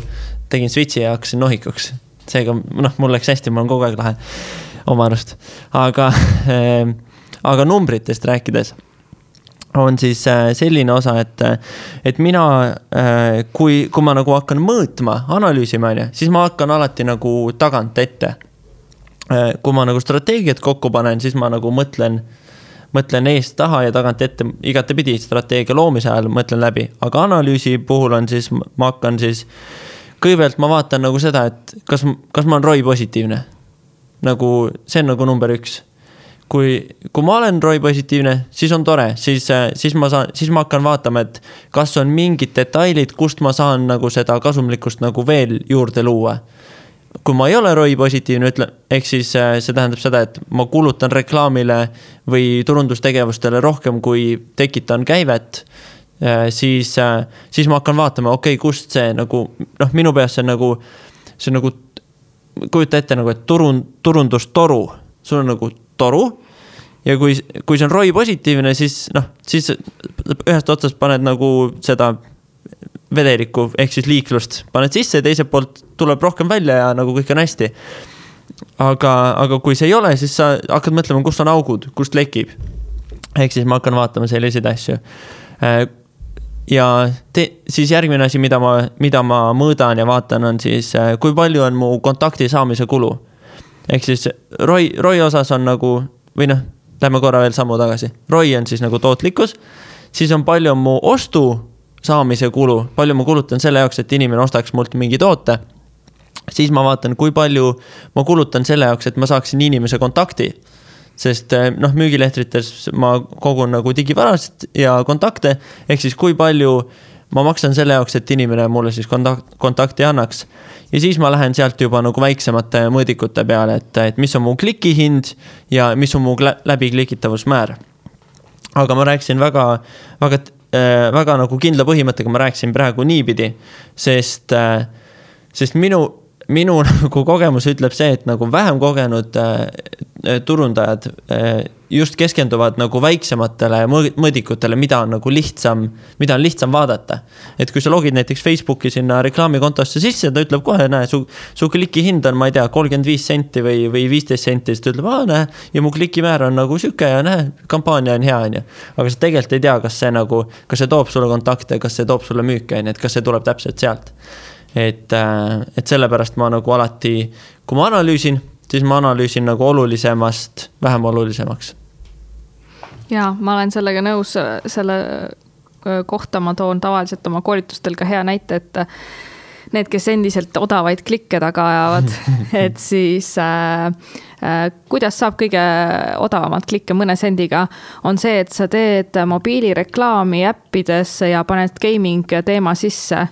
tegin switchi ja hakkasin nohikuks. Seega mul läks hästi, ma olen kogu aeg lahe oma arust. Aga numbritest rääkides on siis selline osa, et mina, kui ma nagu hakkan mõõtma, analüüsima, siis ma hakkan alati nagu tagant ette. Kui ma nagu strateegiat kokku panen, siis ma nagu mõtlen eest taha ja tagant ette igatepidi strateegia loomise ajal mõtlen läbi. Aga analüüsi puhul on siis, ma hakkan siis, kõigepealt ma vaatan nagu seda, et kas ma olen ROI positiivne. Nagu, see on nagu number 1. Kui ma olen ROI positiivne, siis on tore, siis ma hakkan vaatama, et kas on mingid detailid, kust ma saan nagu seda kasumlikkust nagu veel juurde luua. Kui ma ei ole ROI positiivne, ehk siis see tähendab seda, et ma kulutan reklaamile või turundustegevustele rohkem, kui tekitan käivet, siis ma hakkan vaatama, okei, kust see nagu, minu peas see on nagu, kujuta ette nagu, et turundustoru, sul on nagu toru ja kui see on ROI positiivne, siis ühest otsast paned nagu seda vedeliku, ehk siis liiklust paned sisse ja teiselt poolt tuleb rohkem välja ja nagu kõik on hästi. Aga kui see ei ole, siis sa hakkad mõtlema, kust on augud, kust lekib. Ehk siis ma hakkan vaatama selliseid asju. Ja siis järgmine asi, mida ma mõõdan ja vaatan, on siis, kui palju on mu kontakti saamise kulu. Ehk siis ROI osas on nagu, või lähme korra veel sammu tagasi. ROI on siis nagu tootlikkus, siis on palju mu ostu saamise kulu, palju ma kulutan selle jaoks, et inimene ostaks mult mingi toote, siis ma vaatan, kui palju ma kulutan selle jaoks, et ma saaksin inimese kontakti. Sest müügilehtrites ma kogun nagu digivarast ja kontakte, ehk siis kui palju ma maksan selle jaoks, et inimene mulle siis kontakti annaks. Ja siis ma lähen sealt juba nagu väiksemate mõõdikute peale, et mis on mu klikihind ja mis on mu läbiklikitavusmäär. Aga ma rääksin väga nagu kindla põhimõttega, ma rääksin praegu niipidi, sest minu nagu kogemus ütleb see, et nagu vähem kogenud turundajad just keskenduvad nagu väiksematele mõõdikutele, mida on nagu lihtsam vaadata. Et kui sa logid näiteks Facebooki sinna reklaamikontosse sisse, ta ütleb kohe, näe, su kliki hind on, ma ei tea, 35 senti või 15 senti, siis ta ütleb, näe, ja mu klikimäär on nagu süke ja näe, kampaania on hea, on ju. Aga sa tegelikult ei tea, kas see toob sulle kontakte, kas see toob sulle müüke, et kas see tuleb täpselt sealt. Et sellepärast ma nagu alati, kui ma analüüsin, siis ma analüüsin nagu olulisemast vähem olulisemaks. Jaa, ma olen sellega nõus, selle kohta ma toon tavaliselt oma koolitustel ka hea näite, et need, kes endiselt odavaid klikke taga ajavad, et siis kuidas saab kõige odavamat klikke mõne sendiga, on see, et sa teed mobiilireklaami äppidesse ja paned gaming teema sisse.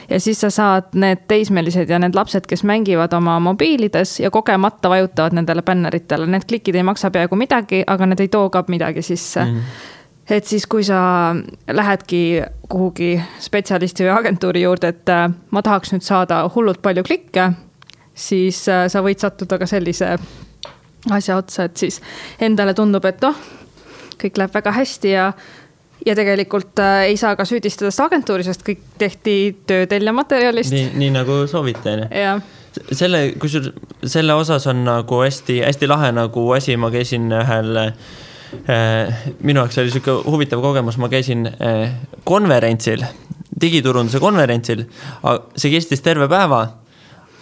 Ja siis sa saad need teismelised ja need lapsed, kes mängivad oma mobiilides ja kogemata vajutavad nendele bänneritele. Need klikid ei maksa peaaegu midagi, aga need ei too ka midagi sisse. Et siis, kui sa lähedki kuhugi spetsialisti või agentuuri juurde, et ma tahaks nüüd saada hullult palju klikke, siis sa võid sattuda ka sellise asja otsa, et siis endale tundub, et kõik läheb väga hästi ja tegelikult ei saa ka süüdistada seda agentuuri, sest kõik tehti töötelja materjalist. Nii nagu soovite. Selle osas on nagu hästi lahe nagu asi, ma käisin ühel, minu jaoks oli selline huvitav kogemus, ma käisin konverentsil, digiturunduse konverentsil, see kestis terve päeva,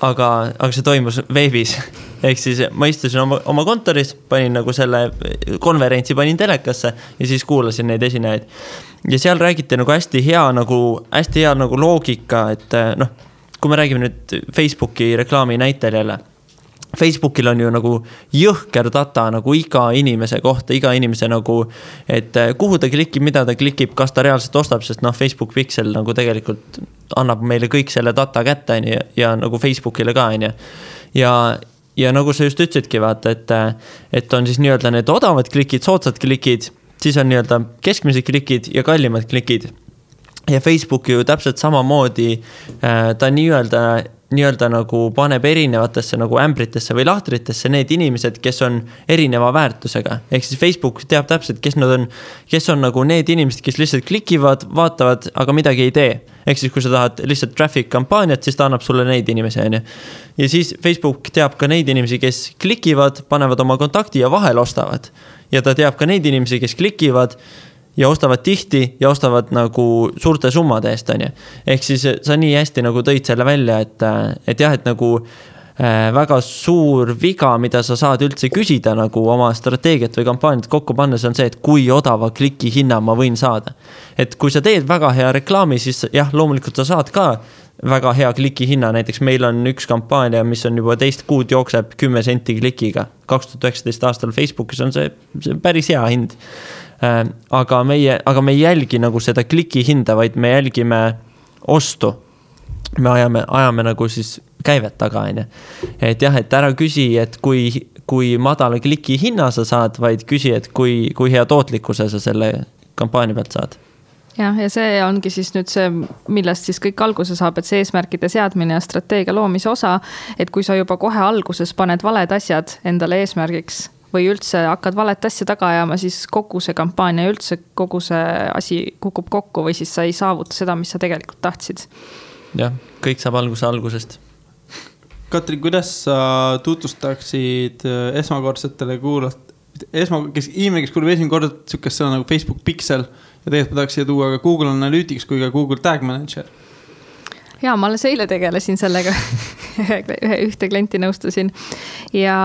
aga see toimus veebis. Ehk siis ma istusin oma kontoris, panin nagu selle konverentsi, panin telekasse ja siis kuulasin neid esinejaid. Ja seal räägiti nagu hästi hea nagu loogika, et kui me räägime nüüd Facebooki reklaami näitel jälle, Facebookil on ju nagu jõhker data nagu iga inimese kohta, iga inimese nagu, et kuhu ta klikib, mida ta klikib, kas ta reaalselt ostab, sest Facebook Pixel nagu tegelikult annab meile kõik selle data kätte ja nagu Facebookile ka. Ja nagu sa just ütlesidki, vaata, et on siis nii-öelda need odavad klikid, soodsad klikid, siis on nii-öelda keskmised klikid ja kallimad klikid. Ja Facebook ju täpselt samamoodi, ta nii-öelda nagu paneb erinevatesse nagu ämbritesse või lahtritesse need inimesed, kes on erineva väärtusega. Ehk siis Facebook teab täpselt, kes on nagu need inimesed, kes lihtsalt klikivad, vaatavad, aga midagi ei tee. Ehk siis kui sa tahad lihtsalt traffic kampaaniat, siis ta annab sulle neid inimesi. Ja siis Facebook teab ka neid inimesi, kes klikivad, panevad oma kontakti ja vahel ostavad. Ja ta teab ka neid inimesi, kes klikivad ja ostavad tihti ja ostavad nagu suurte summade eest. Ehk siis sa nii hästi nagu tõid selle välja, et jah, et nagu väga suur viga, mida sa saad üldse küsida nagu oma strateegiat või kampaaniat kokku pannes on see, et kui odava kliki hinna ma võin saada. Et kui sa teed väga hea reklaami, siis jah, loomulikult sa saad ka väga hea kliki hinna. Näiteks meil on üks kampaania, mis on juba 2 kuud jookseb 10 senti klikiga. 2019 aastal Facebookis on see päris hea hind. Aga me ei jälgi nagu seda kliki hinda, vaid me jälgime ostu. Me ajame nagu siis käivet taga. Et jah, et ära küsi, et kui madala kliki hinna sa saad, vaid küsi, et kui hea tootlikkuse sa selle kampaania pealt saad. Ja see ongi siis nüüd see, millest siis kõik alguse saab, et see eesmärkide seadmine ja strateegia loomise osa, et kui sa juba kohe alguses paned valed asjad endale eesmärgiks või üldse hakkad valet asja taga ajama, siis kogu see kampaania ja üldse kogu see asi kukub kokku või siis sa ei saavuta seda, mis sa tegelikult tahtsid. Jah, kõik saab algusest. Katri, kuidas sa tutvustaksid esmakordsetele inimene, kes kuuleb esimene kord sükest sõna nagu Facebook Pixel ja tegelikult ma tahaks siia tuua ka Google Analytics kui ka Google Tag Manager? Jaa, ma alles eile tegelesin sellega, ühte klienti nõustusin ja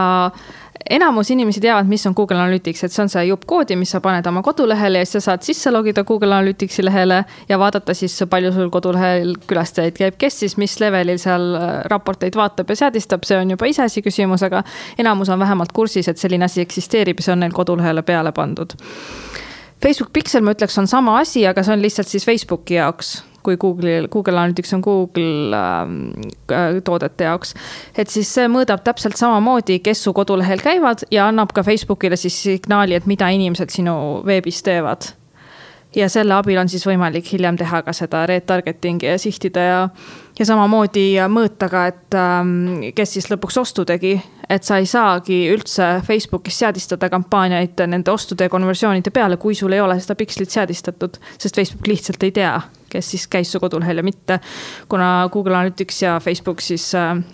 enamus inimesi teavad, mis on Google Analytics, et see on see jupp koodi, mis sa paned oma kodulehele ja siis sa saad sisse logida Google Analyticsi lehele ja vaadata siis palju sul kodulehel külastajaid käib, kes siis mis levelil seal raporteid vaatab ja seadistab, see on juba iseasi küsimus, aga enamus on vähemalt kursis, et selline asi eksisteerib ja see on neil kodulehele peale pandud. Facebook Pixel, ma ütleks, on sama asi, aga see on lihtsalt siis Facebooki jaoks, kui Google Analytics on Google toodete jaoks. Et siis see mõõdab täpselt samamoodi, kes su kodulehel käivad ja annab ka Facebookile siis signaali, et mida inimesed sinu veebis teevad. ja selle abil on siis võimalik hiljem teha ka seda retargetingi ja sihtida ja samamoodi mõõta ka, et kes siis lõpuks ostu tegi, et sa ei saagi üldse Facebookis seadistada kampaaniaid nende ostude ja konversioonide peale, kui sul ei ole seda pikslit seadistatud, sest Facebook lihtsalt ei tea, kes siis käis su kodulehel ja mitte, kuna Google Analytics ja Facebook siis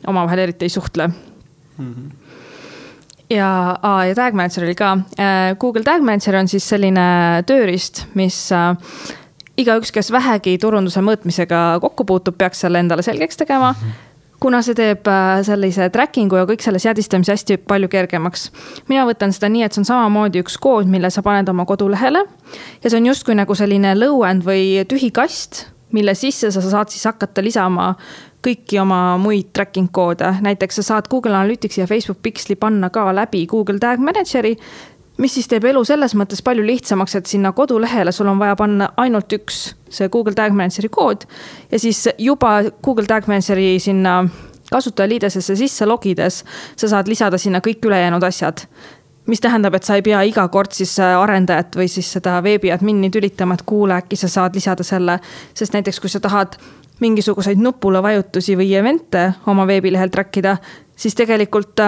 omavahel eriti ei suhtle. Ja Tag Manager oli ka. Google Tag Manager on siis selline tööriist, mis igaüks, kes vähegi turunduse mõõtmisega kokku puutub, peaks selle endale selgeks tegema, kuna see teeb sellise trackingu ja kõik selle seadistamise hästi palju kergemaks. Mina võtan seda nii, et see on samamoodi üks kood, mille sa paned oma kodulehele ja see on justkui nagu selline low-end või tühi kast, mille sisse sa saad siis hakata lisama kõiki oma muid tracking koode. Näiteks sa saad Google Analytics ja Facebook Pixeli panna ka läbi Google Tag Manageri, mis siis teeb elu selles mõttes palju lihtsamaks, et sinna kodulehele sul on vaja panna ainult üks see Google Tag Manageri kood ja siis juba Google Tag Manageri sinna kasutajaliidesesse sisse logides sa saad lisada sinna kõik ülejäänud asjad. Mis tähendab, et sa ei pea iga kord siis arendajat või siis seda veebiadmini tülitama, et kuule, äkki sa saad lisada selle, sest näiteks kui sa tahad mingisuguseid nupule vajutusi või evente oma veebilehel trackida, siis tegelikult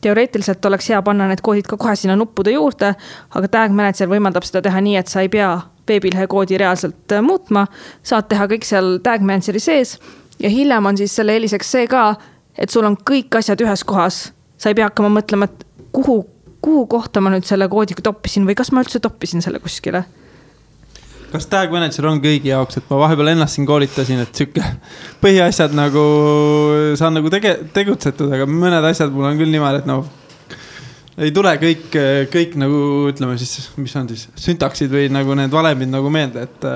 teoreetiliselt oleks hea panna need koodid ka kohe sinna nuppude juurde, aga Tag Manager võimaldab seda teha nii, et sa ei pea veebilehe koodi reaalselt muutma, saad teha kõik seal Tag Manageri sees ja hiljem on siis selle eeliseks see ka, et sul on kõik asjad ühes kohas. Sa ei pea hakkama mõtlema, et kuhu kohta ma nüüd selle koodi toppisin või kas ma üldse toppisin selle kuskile. Kas Tag Manager on kõigi jaoks, et ma vahepeal ennast siin koolitasin, et sükke põhiasjad nagu saan nagu tegutsetud, aga mõned asjad mul on küll niimoodi, et ei tule kõik nagu ütleme siis, mis on siis syntaksid või nagu need valemid nagu meelde, et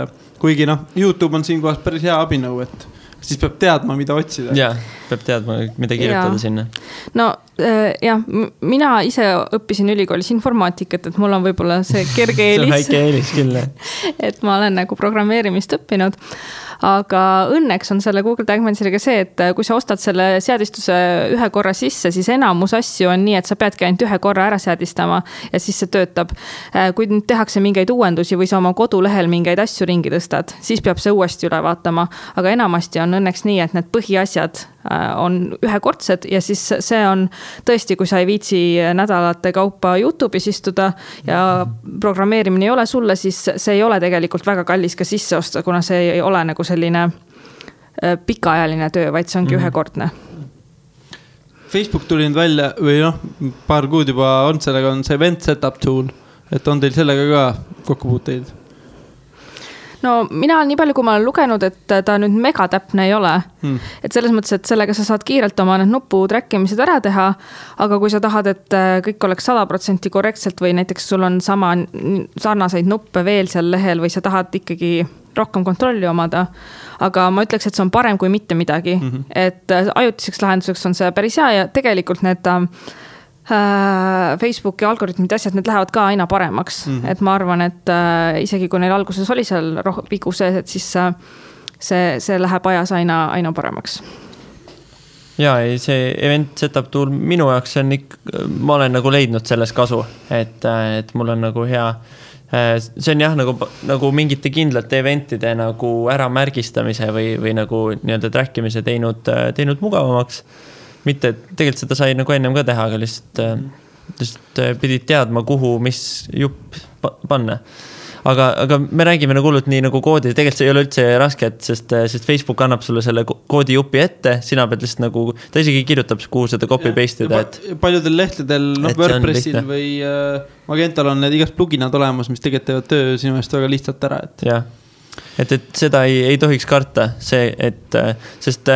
kuigi YouTube on siin kohas päris hea abinõu, et siis peab teadma, mida otsida. Jaa, peab teadma, mida kirjutada sinna. No jah, mina ise õppisin ülikoolis informaatikat, et mul on võib-olla see kerge eelis. See on väike eelis küll. Et ma olen nagu programmeerimist õppinud. Aga õnneks on selle Google Tag Manageriga see, et kui sa ostad selle seadistuse ühe korra sisse, siis enamus asju on nii, et sa peadki ainult ühe korra ära seadistama ja siis see töötab. Kui nüüd tehakse mingeid uuendusi või sa oma kodulehel mingeid asju ringi tõstad, siis peab see uuesti üle vaatama. Aga enamasti on õnneks nii, et need põhiasjad on ühekordsed ja siis see on tõesti, kui sa ei viitsi nädalate kaupa YouTube'is istuda ja programmeerimine ei ole sulle, siis see ei ole tegelikult väga kallis ka sisse osta, kuna see ei ole nagu selline pikaajaline töö, vaid see ongi ühekordne. Facebook tuli nüüd välja või paar kuud juba on sellega, on see event setup tool, et on teil sellega ka kokkupuuteid? No mina nii palju, kui ma olen lugenud, et ta nüüd megatäpne ei ole. Et selles mõttes, et sellega sa saad kiirelt oma need nupu trackimised ära teha, aga kui sa tahad, et kõik oleks 100% korrektselt või näiteks sul on sarnaseid nuppe veel seal lehel või sa tahad ikkagi rohkem kontrolli omada, aga ma ütleks, et see on parem kui mitte midagi. Et ajutiseks lahenduseks on see päris hea ja tegelikult need Facebooki algoritmid asjad, need lähevad ka aina paremaks. Et ma arvan, et isegi kui neil alguses oli seal vigu sees, et siis see läheb ajas aina paremaks. Jaa, see event setup tool minu jaoks on ma olen nagu leidnud selles kasu, et mul on nagu hea. See on jah, nagu mingite kindlate eventide nagu ära märgistamise või nagu nii-öelda trackimise teinud mugavamaks. Mitte, tegelikult seda sai nagu ennem ka teha, aga lihtsalt pidid teadma, kuhu, mis jupp panna. Aga me räägime nagu hullult nii nagu koodi, tegelikult see ei ole üldse raske, sest Facebook annab sulle selle koodi jupi ette, sina pead lihtsalt nagu, ta isegi kirjutab, kuhu seda copy-paste ida. Paljudel lehtedel, WordPressil või Magental on need igast pluginad olemas, mis tegelikult teevad töö sinu eest väga lihtsalt ära. Jah. Et seda ei tohiks karta, sest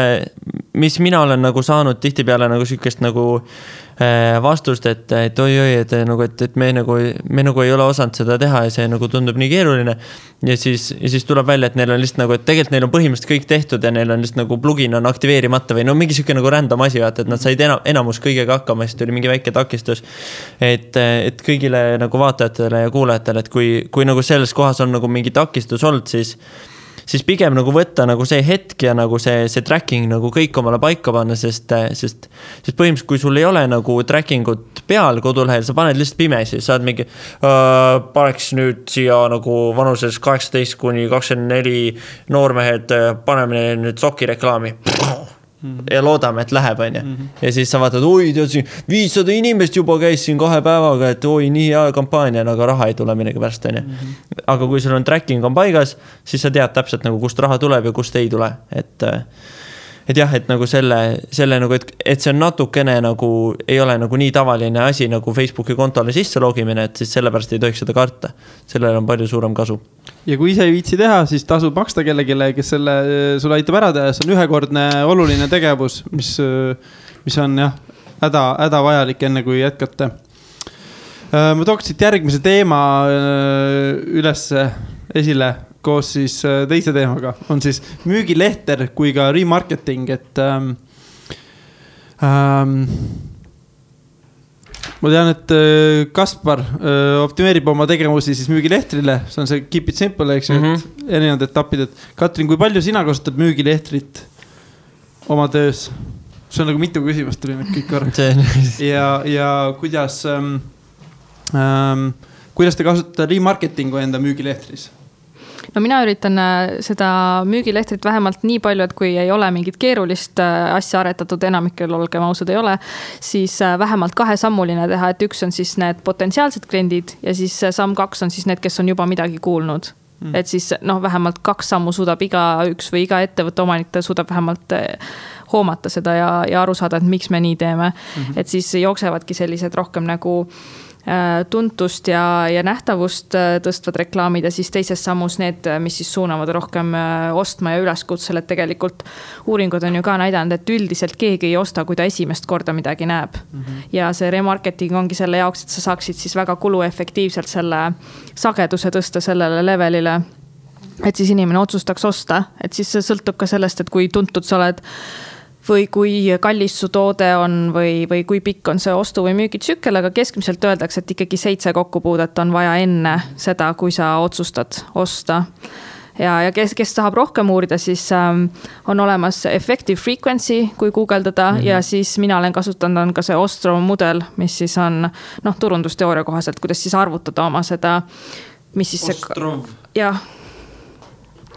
mis mina olen nagu saanud tihtipeale nagu sükest nagu vastust, et me nagu ei ole osanud seda teha ja see nagu tundub nii keeruline ja siis tuleb välja, et neil on lihtsalt nagu, et tegelikult neil on põhimõtteliselt kõik tehtud ja neil on lihtsalt nagu plugin on aktiveerimata või mingi sükke nagu random asi, et nad said enamus kõigega hakkama, siis tuli mingi väike takistus, et kõigile nagu vaatajatele ja kuulajatele, et kui nagu selles kohas on nagu mingi takistus olnud, siis pigem nagu võtta nagu see hetk ja nagu see tracking nagu kõik omale paika panna, sest põhimõtteliselt, kui sul ei ole nagu trackingut peal kodulehel, sa paned lihtsalt pimesi, saad mingi paneks nüüd siia nagu vanuses 18-24 noormehed, paneme nüüd sokireklaami ja loodame, et läheb, on ju. Ja siis sa vaatad, oi, tead siin 500 inimest juba käis siin 2 päevaga, et oi, nii hea kampaania, aga raha ei tule midagi pärast, on ju. Aga kui sul on tracking on paigas, siis sa tead täpselt nagu kust raha tuleb ja kust ei tule. Et jah, et nagu selle nagu, et see on natukene nagu, ei ole nagu nii tavaline asi nagu Facebooki kontole sisse logimine, et siis sellepärast ei tohiks seda karta. Sellel on palju suurem kasu. Ja kui ise ei viitsi teha, siis tasub maksta kellegile, kes selle sulle aitab ära teha. See on ühekordne oluline tegevus, mis on jah, häda vajalik enne kui jätkata. Ma tooks siit järgmise teema üles esile koos siis teise teemaga. On siis müügilehter kui ka remarketing, et ma tean, et Kaspar optimeerib oma tegevusi siis müügilehtrile. See on see keep it simple, eks ju, et erinevad etapid. Et Katrin, kui palju sina kasutad müügilehtrit oma töös? See on nagu mitu küsimust tuli nüüd kõik korraks. Ja kuidas te kasutate remarketingu enda müügilehtris? No mina üritan seda müügilehtrit vähemalt nii palju, et kui ei ole mingit keerulist asja aretatud, enamikel olgem ausad ei ole, siis vähemalt 2-sammuline teha, et üks on siis need potentsiaalsed kliendid ja siis samm 2 on siis need, kes on juba midagi kuulnud. Et siis vähemalt 2 sammu suudab iga üks või iga ettevõtte omanik suudab vähemalt hoomata seda ja aru saada, et miks me nii teeme. Et siis jooksevadki sellised rohkem nagu tuntust ja nähtavust tõstvad reklaamid ja siis teises sammus need, mis siis suunavad rohkem ostma ja üleskutsel, et tegelikult uuringud on ju ka näidanud, et üldiselt keegi ei osta, kui ta esimest korda midagi näeb. Ja see remarketing ongi selle jaoks, et sa saaksid siis väga kuluefektiivselt selle sageduse tõsta sellele levelile, et siis inimene otsustaks osta, et siis see sõltub ka sellest, et kui tuntud sa oled või kui kallis su toode on või kui pikk on see ostu- või müügitsükkel, aga keskmiselt öeldakse, et ikkagi 7 kokkupuudet on vaja enne seda, kui sa otsustad osta. Ja kes tahab rohkem uurida, siis on olemas effective frequency, kui guugeldada ja siis mina olen kasutanud on ka see Ostrom mudel, mis siis on turundusteooria kohaselt, kuidas siis arvutada oma seda, mis siis Ostrom. Ja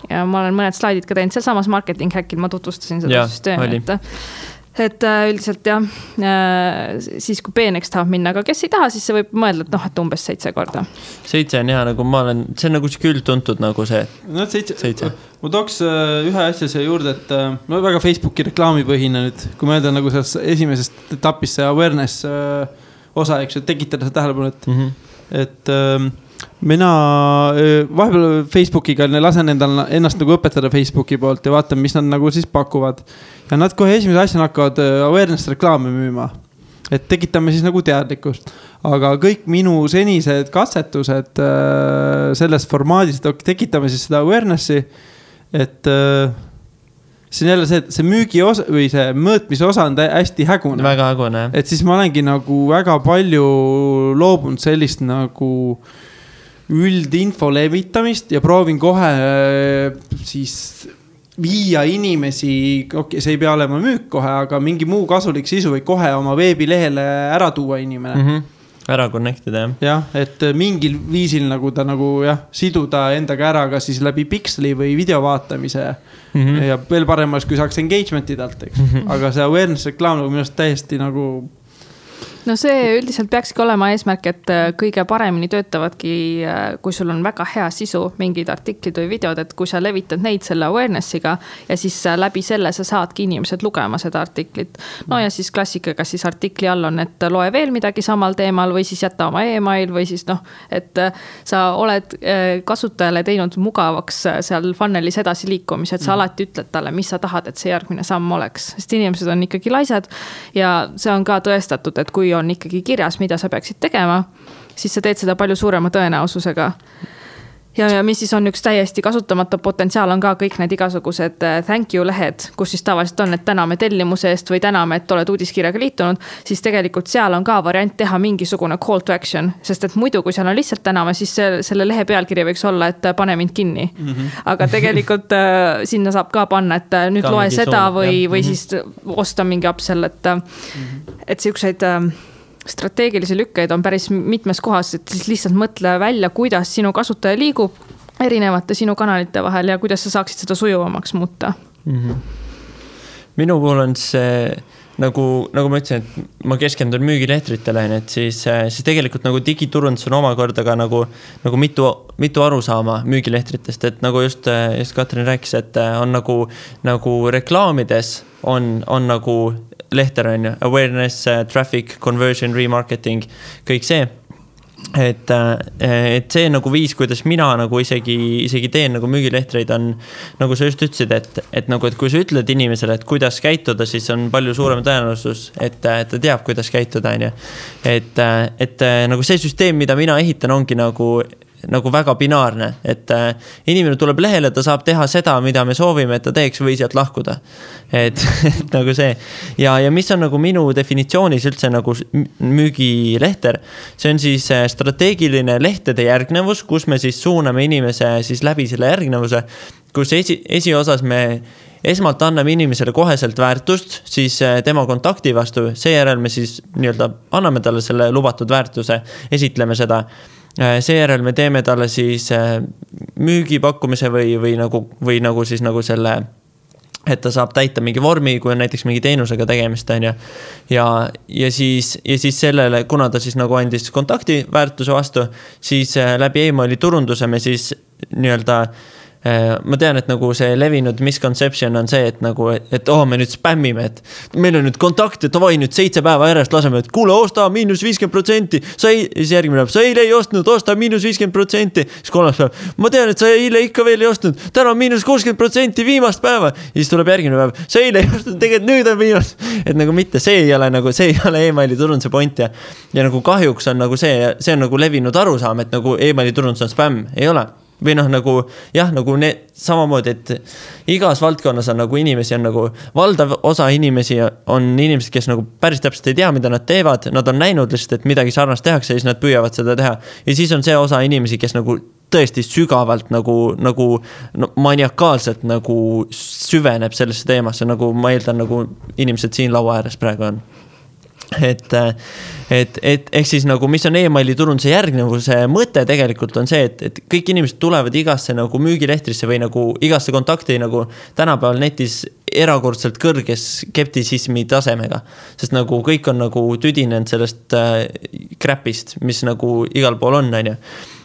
ma olen mõned slaidid ka teinud seal samas marketing hackil, ma tutvustasin seda süsteemi. Et üldiselt siis kui peeneks tahab minna, aga kes ei taha, siis see võib mõelda, et umbes 7 korda. 7 on hea, nagu ma olen, see on nagu küll tuntud nagu see. 7. Ma tooks ühe asja siia juurde, et väga Facebooki reklaamipõhine nüüd, kui mõelda nagu selles esimesest etapist see awareness osa, eks ju, tekitada seda tähelepanu, et mina vahepeal Facebookiga lasen ennast nagu õpetada Facebooki poolt ja vaatan, mis nad nagu siis pakuvad. Ja nad kohe esimese asjana hakkavad awareness reklaame müüma. Et tekitame siis nagu teadlikkust. Aga kõik minu senised katsetused selles formaadis, tekitame siis seda awarenessi, et see on jälle see, et see müügi osa või see mõõtmise osa on hästi hägune. Väga hägune, jah. Et siis ma olengi nagu väga palju loobunud sellist nagu üldinfo levitamist ja proovin kohe siis viia inimesi, see ei pea olema müük kohe, aga mingi muu kasulik sisu või kohe oma veebilehele ära tuua inimene. Ära connectida, jah. Jah, et mingil viisil nagu ta nagu siduda endaga ära ka siis läbi piksli või video vaatamise ja veel paremas, kui saaks engagement'i talt, eks. Aga see awareness reklaam nagu minust täiesti nagu No see üldiselt peakski olema eesmärk, et kõige paremini töötavadki, kui sul on väga hea sisu, mingid artiklid või videod, et kui sa levitad neid selle awarenessiga ja siis läbi selle sa saadki inimesed lugema seda artiklit. No ja siis klassikaga siis artikli all on, et loe veel midagi samal teemal või siis jätta oma email või siis et sa oled kasutajale teinud mugavaks seal funnelis edasi liikumise, et sa alati ütled talle, mis sa tahad, et see järgmine samm oleks. Sest inimesed on ikkagi laisad ja see on ka tõestatud, et kui on ikkagi kirjas, mida sa peaksid tegema, siis sa teed seda palju suurema tõenäosusega. Ja mis siis on üks täiesti kasutamata potentsiaal on ka kõik need igasugused thank you lehed, kus siis tavaliselt on, et täname tellimuse eest või täname, et oled uudiskirjaga liitunud, siis tegelikult seal on ka variant teha mingisugune call to action, sest et muidu, kui seal on lihtsalt täname, siis selle lehe pealkiri võiks olla, et pane mind kinni. Aga tegelikult sinna saab ka panna, et nüüd loe seda või siis osta mingi upsell, et siukseid strateegilisi lükkeid on päris mitmes kohas, et siis lihtsalt mõtle välja, kuidas sinu kasutaja liigub erinevate sinu kanalite vahel ja kuidas sa saaksid seda sujuvamaks muuta. Minu puhul on see nagu ma ütlesin, et ma keskendun müügilehtritele, et siis tegelikult nagu digiturundus on omakorda ka nagu mitu arusaama müügilehtritest, et nagu just Katrin rääkis, et on nagu reklaamides on nagu lehter on ju, awareness, traffic, conversion, remarketing, kõik see. Et see nagu viis, kuidas mina nagu isegi teen nagu müügilehtreid on, nagu sa just ütlesid, et kui sa ütled inimesele, et kuidas käituda, siis on palju suurem tõenäosus, et ta teab, kuidas käituda, on ju. Et nagu see süsteem, mida mina ehitan, ongi nagu väga binaarne, et inimene tuleb lehele, ta saab teha seda, mida me soovime, et ta teeks või sealt lahkuda. Et nagu see. Ja mis on nagu minu definitsioonis üldse nagu müügilehter, see on siis strateegiline lehtede järgnevus, kus me siis suuname inimese siis läbi selle järgnevuse, kus esiosas me esmalt anname inimesele koheselt väärtust, siis tema kontakti vastu, seejärel me siis nii-öelda anname talle selle lubatud väärtuse, esitleme seda. Seejärel me teeme talle siis müügipakkumise või nagu siis nagu selle, et ta saab täita mingi vormi, kui on näiteks mingi teenusega tegemist, on ju. Ja siis sellele, kuna ta siis nagu andis kontakti väärtuse vastu, siis läbi emaili turunduse me siis nii-öelda ma tean, et nagu see levinud misconception on see, et nagu, et me nüüd spämmime, et meil on nüüd kontakt, et davai nüüd 7 päeva järjest laseme, et kuule, osta -50%, siis järgmine päev, sa eile ei ostnud, osta -50%, siis kolmas päev, ma tean, et sa eile ikka veel ei ostnud, täna on -60% viimast päeva, ja siis tuleb järgmine päev, sa eile ei ostnud, tegelikult nüüd on viimast, et nagu mitte, see ei ole emaili turunduse point ja nagu kahjuks on nagu see on nagu levinud arusaam, et nagu emaili turundus on spämm, ei ole. Või nagu samamoodi, et igas valdkonnas on nagu inimesi on nagu valdav osa inimesi on inimesed, kes nagu päris täpselt ei tea, mida nad teevad, nad on näinud lihtsalt, et midagi sarnast tehakse ja siis nad püüavad seda teha. Ja siis on see osa inimesi, kes nagu tõesti sügavalt nagu maniakaalselt nagu süveneb sellesse teemasse, nagu ma eeldan, nagu inimesed siin laua ääres praegu on. Et ehk siis nagu, mis on emaili turunduse järgnevuse mõte tegelikult on see, et kõik inimesed tulevad igasse nagu müügilehtrisse või nagu igasse kontakti nagu tänapäeval netis erakordselt kõrges skeptisismi tasemega, sest nagu kõik on nagu tüdinenud sellest crapist, mis nagu igal pool on, on ju.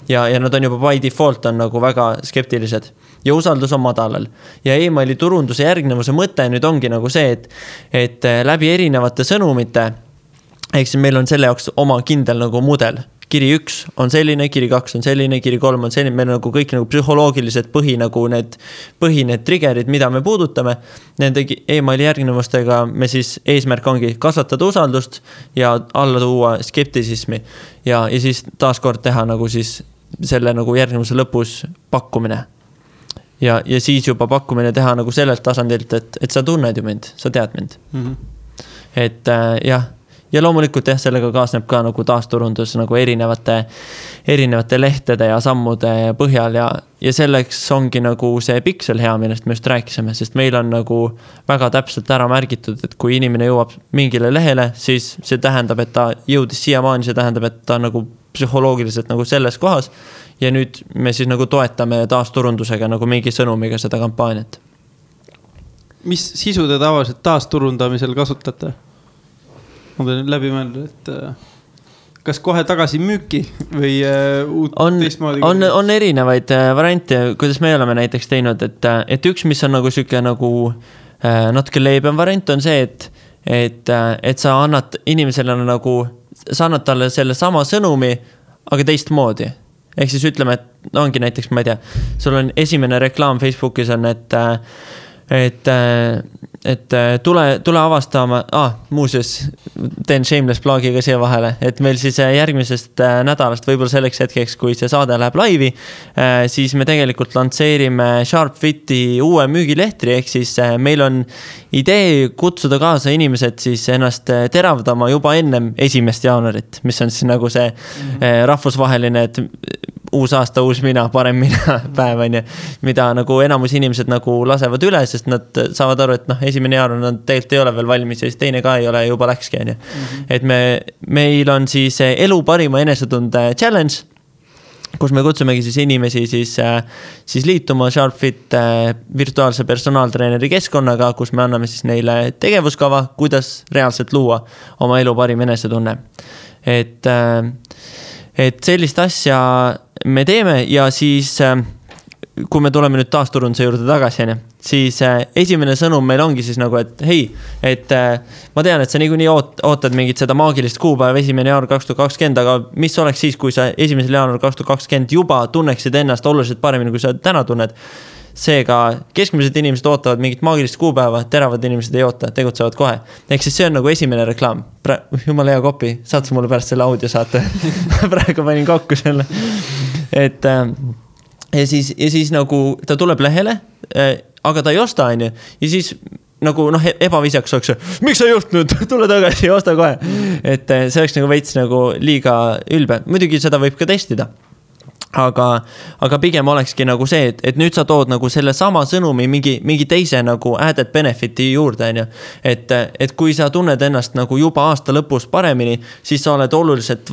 Ja nad on juba by default on nagu väga skeptilised ja usaldus on madalal. Ja emaili turunduse järgnevuse mõte nüüd ongi nagu see, et läbi erinevate sõnumite, ehk siis meil on selle jaoks oma kindel nagu mudel. Kiri 1 on selline, kiri 2 on selline, kiri 3 on selline, meil on nagu kõik nagu psühholoogilised need triggerid, mida me puudutame. Nende emaili järgnevustega me siis eesmärk ongi kasvatada usaldust ja alla tuua skeptisismi ja siis taaskord teha nagu siis selle nagu järgnevuse lõpus pakkumine. Ja siis juba pakkumine teha nagu sellelt tasandilt, et sa tunned ju mind, sa tead mind. Et jah. Ja loomulikult sellega kaasneb ka nagu taasturundus nagu erinevate lehtede ja sammude põhjal ja selleks ongi nagu see piksel hea, millest me just rääkisime, sest meil on nagu väga täpselt ära märgitud, et kui inimene jõuab mingile lehele, siis see tähendab, et ta jõudis siiamaani, see tähendab, et ta nagu psühholoogiliselt nagu selles kohas ja nüüd me siis nagu toetame taasturundusega nagu mingi sõnumiga seda kampaaniat. Mis sisu te tavaliselt taasturundamisel kasutate? Ma pean läbi mõelda, et kas kohe tagasi müüki või teistmoodi? On erinevaid variante, kuidas me oleme näiteks teinud, et üks, mis on nagu süke nagu natuke leebem variant on see, et sa annad inimesele nagu, sa annad talle selle sama sõnumi, aga teistmoodi. Ehk siis ütleme, et ongi näiteks, ma ei tea, sul on esimene reklaam Facebookis on, et tule avastama, muuseas teen shameless blogiga siia vahele, et meil siis järgmisest nädalast võib-olla selleks hetkeks, kui see saade läheb laivi, siis me tegelikult lantseerime SharpFiti uue müügilehtri, ehk siis meil on idee kutsuda kaasa inimesed siis ennast teravdama juba ennem 1. jaanuarit, mis on siis nagu see rahvusvaheline, et uus aasta, uus mina, parem mina päev on ju, mida nagu enamus inimesed nagu lasevad üle, sest nad saavad aru, et esimene jaanuar nad tegelikult ei ole veel valmis ja siis teine ka ei ole, juba läkski on ju. Et meil on siis elu parima enesetunde challenge, kus me kutsumegi siis inimesi siis liituma SharpFit virtuaalse personaaltreeneri keskkonnaga, kus me anname siis neile tegevuskava, kuidas reaalselt luua oma elu parim enesetunne. Et sellist asja me teeme ja siis, kui me tuleme nüüd taasturunduse juurde tagasi, siis esimene sõnum meil ongi siis nagu, et hei, et ma tean, et sa niikuinii ootad mingit seda maagilist kuupäeva 1. jaanuar 2020, aga mis oleks siis, kui sa 1. jaanuar 2020 juba tunneksid ennast oluliselt paremini, kui sa täna tunned. Seega keskmised inimesed ootavad mingit maagilist kuupäeva, teravad inimesed ei oota, tegutsevad kohe. Ehk siis see on nagu esimene reklaam. Jumal hea kopi, saad sa mulle pärast selle audio saate. Praegu panin kokku selle. Ja siis nagu ta tuleb lehele, aga ta ei osta, on ju. Ja siis nagu ebavisjaks oleks, miks sa ei ostnud, tule tagasi ja osta kohe. Et see oleks nagu veits nagu liiga ülbe. Muidugi seda võib ka testida. Aga pigem olekski nagu see, et nüüd sa tood nagu selle sama sõnumi mingi teise nagu added benefiti juurde, on ju. Et kui sa tunned ennast nagu juba aasta lõpus paremini, siis sa oled oluliselt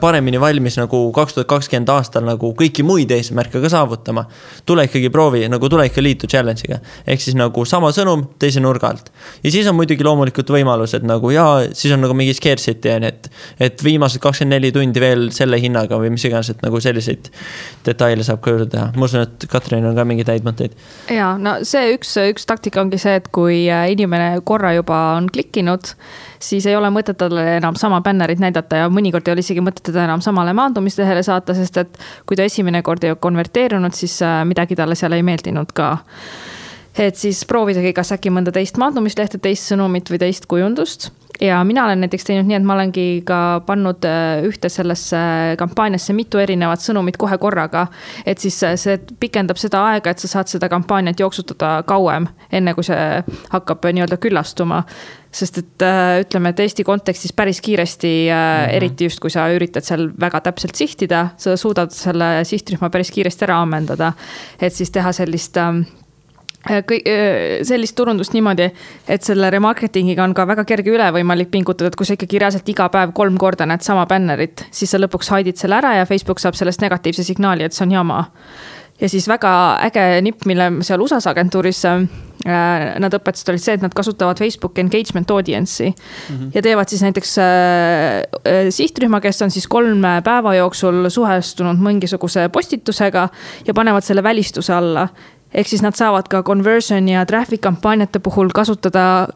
paremini valmis nagu 2020 aastal nagu kõiki muid eesmärke ka saavutama. Tule ikkagi proovi, nagu tule ikka liitu challenge'iga. Ehk siis nagu sama sõnum teise nurga alt. Ja siis on muidugi loomulikult võimalus, et nagu siis on nagu mingi scarcity, et viimased 24 tundi veel selle hinnaga või mis iganes, et nagu selliseid detaile saab ka juurde teha. Ma usun, et Katrin on ka mingi täid mõtteid. Ja, no see üks taktika ongi see, et kui inimene korra juba on klikkinud, siis ei ole mõtet talle enam sama bännerit näidata ja mõnikord ei ole isegi mõtet teda enam samale maandumistehele saata, sest et kui ta esimene kord ei konverteerunud, siis midagi talle seal ei meeldinud ka. Et siis proovidagi kas äkki mõnda teist maandumislehte, teist sõnumit või teist kujundust. Ja mina olen näiteks teinud nii, et ma olengi ka pannud ühte sellesse kampaaniasse mitu erinevat sõnumit kohe korraga. Et siis see pikendab seda aega, et sa saad seda kampaaniat jooksutada kauem, enne kui see hakkab nii-öelda küllastuma. Sest et ütleme, et Eesti kontekstis päris kiiresti, eriti just kui sa üritad seal väga täpselt sihtida, sa suudad selle sihtrühma päris kiiresti ära ammendada. Et siis teha sellist turundust niimoodi, et selle remarketingiga on ka väga kerge üle võimalik pingutada, et kui sa ikkagi reaalselt iga päev 3 korda näed sama bännerit, siis sa lõpuks haidid selle ära ja Facebook saab sellest negatiivse signaali, et see on jama. Ja siis väga äge nipp, mille seal USAs agentuuris nad õpetasid olid see, et nad kasutavad Facebook engagement audience'i ja teevad siis näiteks sihtrühma, kes on siis 3 päeva jooksul suhestunud mingisuguse postitusega ja panevad selle välistuse alla. Ehk siis nad saavad ka conversion ja traffic kampaaniate puhul kasutada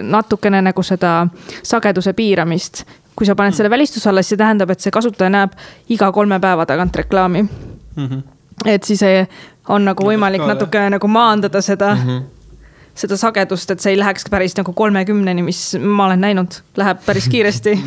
natukene nagu seda sageduse piiramist. Kui sa paned selle välistuse alla, siis see tähendab, et see kasutaja näeb iga 3 päeva tagant reklaami. Et siis on nagu võimalik natukene nagu maandada seda sagedust, et see ei läheks päris nagu 30-ni, mis ma olen näinud, läheb päris kiiresti.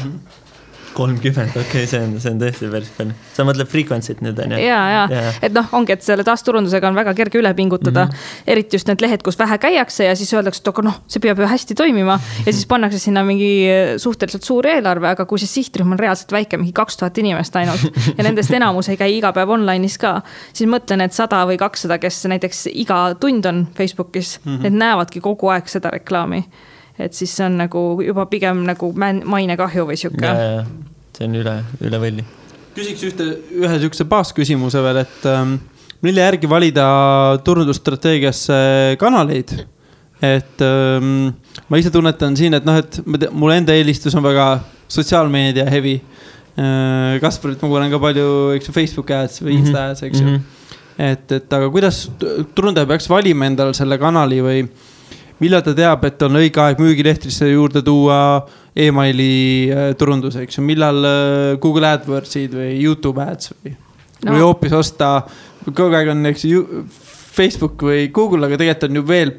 30, okei, see on tõesti päris palju. Sa mõtled frequency't nüüd, on ju? Ja. Et ongi, et selle taasturundusega on väga kerge üle pingutada. Eriti just need lehed, kus vähe käiakse ja siis öeldakse, et see peab ju hästi toimima. Ja siis pannakse sinna mingi suhteliselt suur eelarve, aga kui see sihtrühm on reaalselt väike, mingi 2000 inimest ainult ja nendest enamus ei käi iga päev online'is ka, siis mõtlen, et 100 või 200, kes näiteks iga tund on Facebookis, need näevadki kogu aeg seda reklaami. Et siis see on nagu juba pigem nagu maine kahju või siuke. Ja. See on üle võlli. Küsiks ühe sükse baasküsimuse veel, et mille järgi valida turundusstrateegiasse kanaleid? Et ma ise tunnetan siin, et mul enda eelistus on väga sotsiaalmeedia heavy. Kasparit ma kuulen ka palju, eks Facebook ads või Insta ads, eks ju. Et aga kuidas turundaja peaks valima endal selle kanali või millal ta teab, et on õige aeg müügilehtrisse juurde tuua e-maili turundus, eks ju, millal Google AdWordsid või YouTube ads või hoopis osta, kogu aeg on eks, Facebook või Google, aga tegelikult on ju veel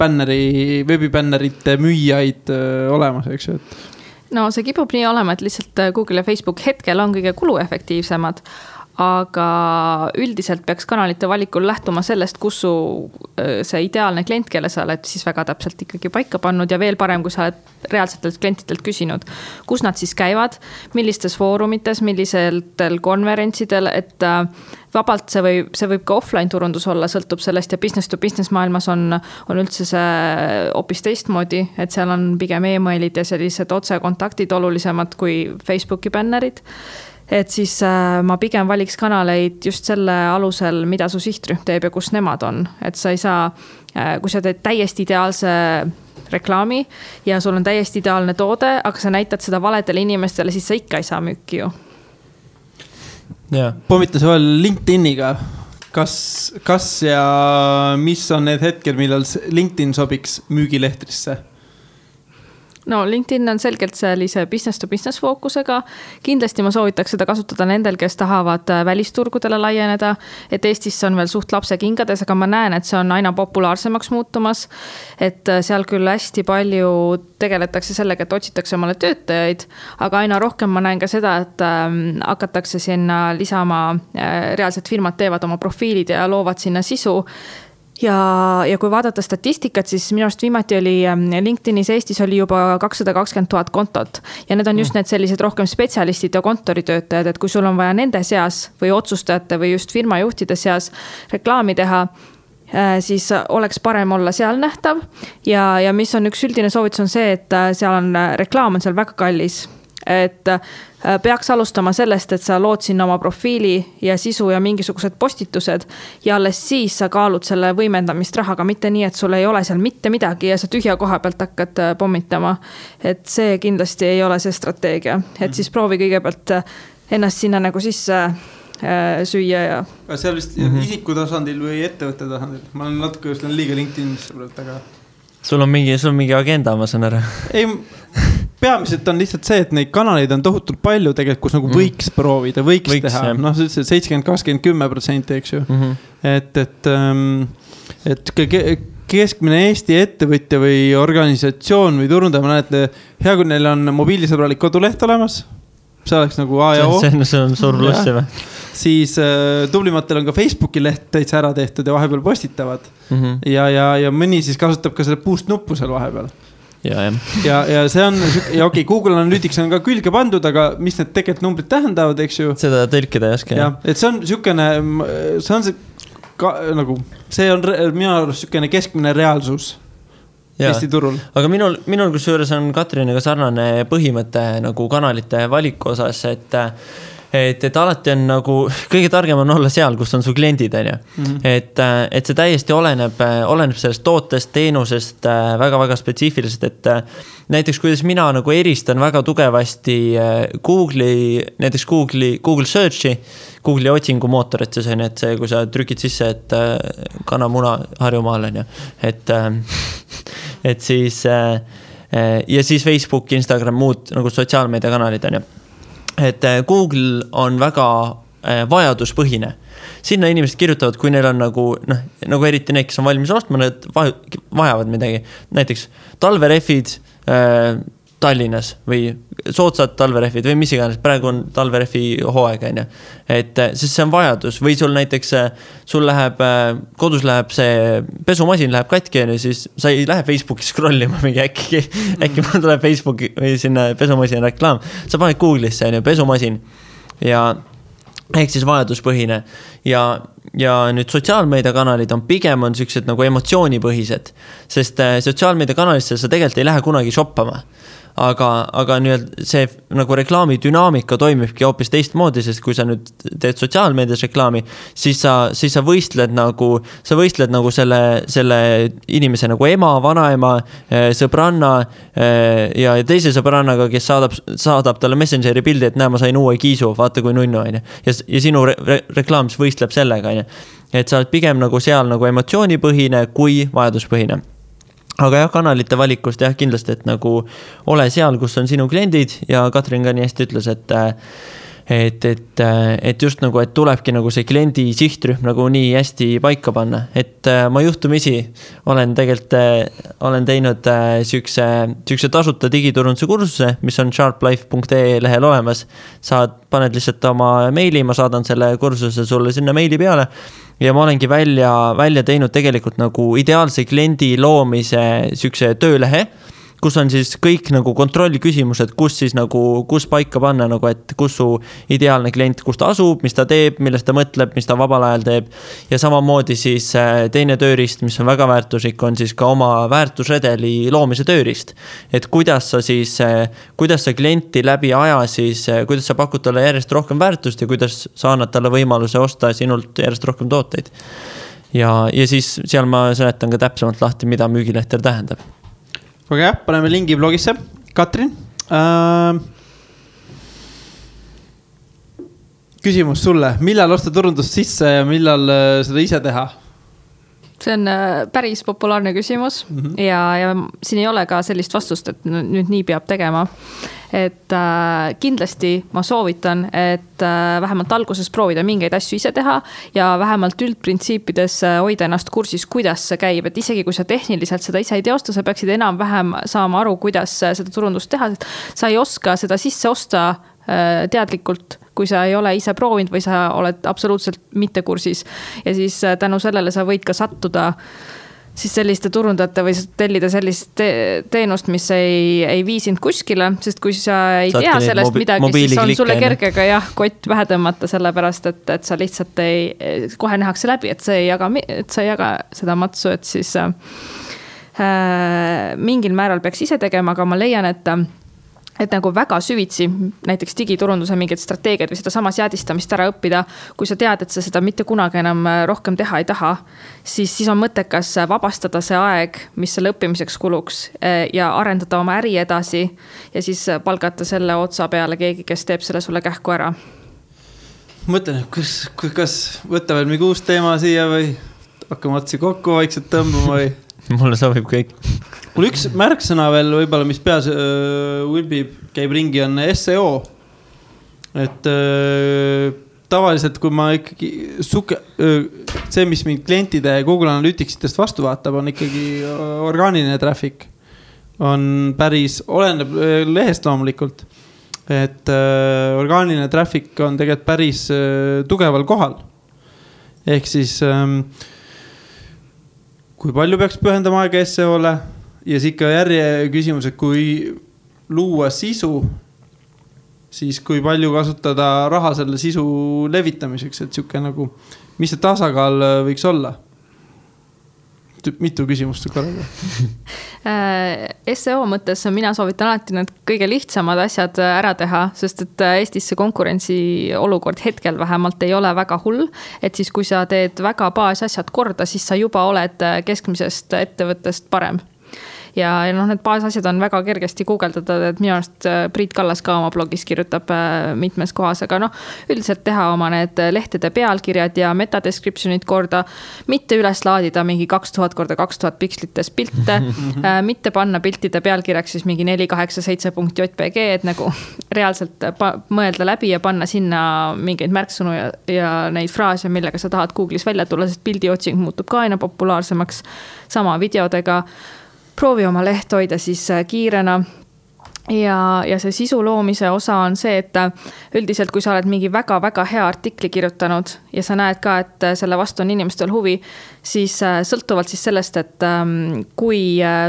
veebibännerite müüjaid olemas, eks ju. No see kipub nii olema, et lihtsalt Google ja Facebook hetkel on kõige kuluefektiivsemad. Aga üldiselt peaks kanalite valikul lähtuma sellest, kus su see ideaalne klient, kelle sa oled siis väga täpselt ikkagi paika pannud ja veel parem, kui sa oled reaalsetelt klientidelt küsinud, kus nad siis käivad, millistes foorumites, millisetel konverentsidel, et vabalt see võib ka offline turundus olla, sõltub sellest ja business to business maailmas on üldse see hoopis teistmoodi, et seal on pigem emailid ja sellised otsekontaktid olulisemad kui Facebooki bännerid. Et siis ma pigem valiks kanaleid just selle alusel, mida su sihtrühm teeb ja kus nemad on. Et sa ei saa, kui sa teed täiesti ideaalse reklaami ja sul on täiesti ideaalne toode, aga sa näitad seda valedele inimestele, siis sa ikka ei saa müüki ju. Pommita sa veel LinkedIniga. Kas ja mis on need hetkel, millal LinkedIn sobiks müügilehtrisse? No LinkedIn on selgelt sellise business to business fookusega. Kindlasti ma soovitaks seda kasutada nendel, kes tahavad välisturgudele laieneda. Et Eestis on veel suht lapse kingades, aga ma näen, et see on aina populaarsemaks muutumas. Et seal küll hästi palju tegeletakse sellega, et otsitakse omale töötajaid, aga aina rohkem ma näen ka seda, et hakatakse sinna lisama, reaalselt firmad teevad oma profiilid ja loovad sinna sisu. Ja kui vaadata statistikat, siis minu arust viimati oli LinkedInis Eestis oli juba 220 000 kontot. Ja need on just need sellised rohkem spetsialistid ja kontoritöötajad, et kui sul on vaja nende seas või otsustajate või just firmajuhtide seas reklaami teha, siis oleks parem olla seal nähtav. Ja mis on üks üldine soovitus on see, et seal on reklaam on seal väga kallis. Et peaks alustama sellest, et sa lood sinna oma profiili ja sisu ja mingisugused postitused ja alles siis sa kaalud selle võimendamist rahaga, mitte nii, et sul ei ole seal mitte midagi ja sa tühja koha pealt hakkad pommitama. Et see kindlasti ei ole see strateegia. Et siis proovi kõigepealt ennast sinna nagu sisse süüa ja... Seal vist isiku tasandil või ettevõtte tasandil? Ma olen natuke just liiga LinkedInisse praegu, aga... Sul on mingi agenda, ma saan ära. Ei... Peamiselt on lihtsalt see, et neid kanaleid on tohutult palju tegelikult, kus nagu võiks proovida, võiks teha. No 70-20-10%, eks ju. Et keskmine Eesti ettevõtja või organisatsioon või turundaja, ma näen, et hea, kui neil on mobiilisõbralik koduleht olemas. See oleks nagu A ja O. See on suur pluss või? Siis tublimatel on ka Facebooki leht täitsa ära tehtud ja vahepeal postitavad. Ja mõni siis kasutab ka selle boost nuppu seal vahepeal. Ja see on, ja okei, Google Analytics on ka külge pandud, aga mis need tegelikult numbrid tähendavad, eks ju? Seda tõlkida ei oska. Et see on siukene, nagu, see on minu arust siukene keskmine reaalsus Eesti turul. Aga minul kusjuures on Katriniga sarnane põhimõte nagu kanalite valiku osas, et alati on nagu, kõige targem on olla seal, kus on su kliendid, on ju. Et see täiesti oleneb sellest tootest, teenusest väga-väga spetsiifiliselt, et näiteks kuidas mina nagu eristan väga tugevasti näiteks Google Searchi, Google'i otsingumootor, et see on, et see, kui sa trükid sisse, et kanamuna Harjumaal, on ju. Et siis ja siis Facebook, Instagram, muud nagu sotsiaalmeediakanalid, on ju. Et Google on väga vajaduspõhine. Sinna inimesed kirjutavad, kui neil on nagu eriti need, kes on valmis ostma, need vajavad midagi. Näiteks talverefid Tallinnas või soodsad talverefid või mis iganes, praegu on talverefi hooaeg, on ju. Et siis see on vajadus või sul näiteks kodus läheb see pesumasin läheb katki, siis sa ei lähe Facebooki scrollima mingi äkki mul tuleb Facebooki või sinna pesumasin reklaam. Sa paned Google'isse, on ju, pesumasin ja ehk siis vajaduspõhine ja nüüd sotsiaalmeediakanalid on pigem on sellised nagu emotsioonipõhised, sest sotsiaalmeediakanalisse sa tegelikult ei lähe kunagi shoppama. Aga see nagu reklaami dünaamika toimibki hoopis teistmoodi, sest kui sa nüüd teed sotsiaalmeedias reklaami, siis sa võistled nagu selle inimese nagu ema, vanaema, sõbranna ja teise sõbrannaga, kes saadab talle Messengeri pildi, et näe, ma sain uue kiisu, vaata kui nunnu, on ju. Ja sinu reklaam võistleb sellega, on ju. Et sa oled pigem nagu seal nagu emotsioonipõhine kui vajaduspõhine. Aga jah, kanalite valikust jah, kindlasti, et nagu ole seal, kus on sinu kliendid ja Katrin ka nii hästi ütles, et just nagu, et tulebki nagu see kliendi sihtrühm nagu nii hästi paika panna. Et ma juhtumisi olen teinud sükse tasuta digiturunduse kursuse, mis on sharplife.ee lehel olemas. Paned lihtsalt oma meili, ma saadan selle kursuse sulle sinna meili peale. Ja ma olengi välja teinud tegelikult nagu ideaalse kliendi loomise sükse töölehe, kus on siis kõik nagu kontrollküsimused, kus siis nagu, kus paika panna nagu, et kus su ideaalne klient, kus ta asub, mis ta teeb, millest ta mõtleb, mis ta vabal ajal teeb. Ja samamoodi siis teine tööriist, mis on väga väärtuslik, on siis ka oma väärtusredeli loomise tööriist. Et kuidas sa klienti läbi aja siis, kuidas sa pakud talle järjest rohkem väärtust ja kuidas sa annad talle võimaluse osta sinult järjest rohkem tooteid. Ja siis seal ma seletan ka täpsemalt lahti, mida müügilehter tähendab. Aga jah, paneme lingi blogisse. Katrin, küsimus sulle. Millal osta turundust sisse ja millal seda ise teha? See on päris populaarne küsimus ja siin ei ole ka sellist vastust, et nüüd nii peab tegema. Et kindlasti ma soovitan, et vähemalt alguses proovida mingeid asju ise teha ja vähemalt üldprintsiipides hoida ennast kursis, kuidas see käib. Et isegi kui sa tehniliselt seda ise ei teosta, sa peaksid enam-vähem saama aru, kuidas seda turundust teha. Sa ei oska seda sisse osta teadlikult, kui sa ei ole ise proovinud või sa oled absoluutselt mitte kursis. Ja siis tänu sellele sa võid ka sattuda siis selliste turundajate või tellida sellist teenust, mis ei viisinud kuskile, sest kui sa ei tea sellest midagi, siis on sulle kergega kott vähe tõmmata sellepärast, et sa lihtsalt kohe nähakse läbi, et sa ei jaga seda matsu, et siis mingil määral peaks ise tegema, aga ma leian, et nagu väga süvitsi näiteks digiturunduse mingid strateegiad või seda sama seadistamist ära õppida, kui sa tead, et sa seda mitte kunagi enam rohkem teha ei taha, siis on mõttekas vabastada see aeg, mis selle õppimiseks kuluks ja arendada oma äri edasi ja siis palgata selle otsa peale keegi, kes teeb selle sulle kähku ära. Mõtlen, kas võtta veel mingi uus teema siia või hakkame otsi kokku vaikselt tõmbama või? Mulle sobib kõik. Mul üks märksõna veel võib-olla, mis peas ulbib, käib ringi, on SEO. Et tavaliselt, kui ma ikkagi see, mis mind klientide Google Analyticsitest vastu vaatab, on ikkagi orgaaniline traffic. On päris, oleneb lehest loomulikult. Et orgaaniline traffic on tegelikult päris tugeval kohal. Ehk siis kui palju peaks pühendama aega SEO-le ja siis ikka järje küsimus, et kui luua sisu, siis kui palju kasutada raha selle sisu levitamiseks, et siuke nagu, mis see tasakaal võiks olla? Mitu küsimust korraga? SEO mõttes mina soovitan alati need kõige lihtsamad asjad ära teha, sest et Eestis see konkurentsi olukord hetkel vähemalt ei ole väga hull, et siis kui sa teed väga baasasjad korda, siis sa juba oled keskmisest ettevõttest parem. Ja need baasasjad on väga kergesti guugeldada, et minu arust Priit Kallas ka oma blogis kirjutab mitmes kohas, aga üldiselt teha oma need lehtede pealkirjad ja metadescriptionid korda, mitte üles laadida mingi 2000x2000 pikslites pilte, mitte panna piltide pealkirjaks siis mingi 487.jpg, et nagu reaalselt mõelda läbi ja panna sinna mingeid märksõnu ja neid fraase, millega sa tahad Google'is välja tulla, sest pildiotsing muutub ka aina populaarsemaks, sama videodega. Proovi oma leht hoida siis kiirena ja see sisu loomise osa on see, et üldiselt kui sa oled mingi väga-väga hea artikli kirjutanud ja sa näed ka, et selle vastu on inimestel huvi, siis sõltuvalt siis sellest, et kui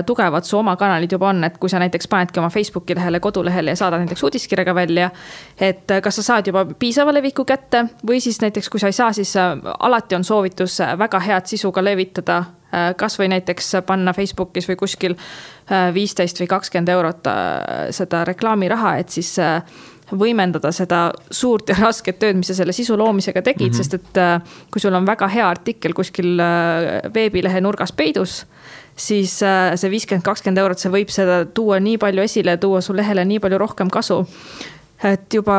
tugevad su oma kanalid juba on, et kui sa näiteks panedki oma Facebooki lehele, kodulehele ja saadad näiteks uudiskirjaga välja, et kas sa saad juba piisava leviku kätte või siis näiteks kui sa ei saa, siis alati on soovitus väga head sisuga levitada, kas või näiteks panna Facebookis või kuskil 15 või 20 eurot seda reklaamiraha, et siis võimendada seda suurt ja rasket tööd, mis sa selle sisu loomisega tegid, sest et kui sul on väga hea artikkel kuskil veebilehe nurgas peidus, siis see 50-20 eurot, see võib seda tuua nii palju esile, tuua su lehele nii palju rohkem kasu. Et juba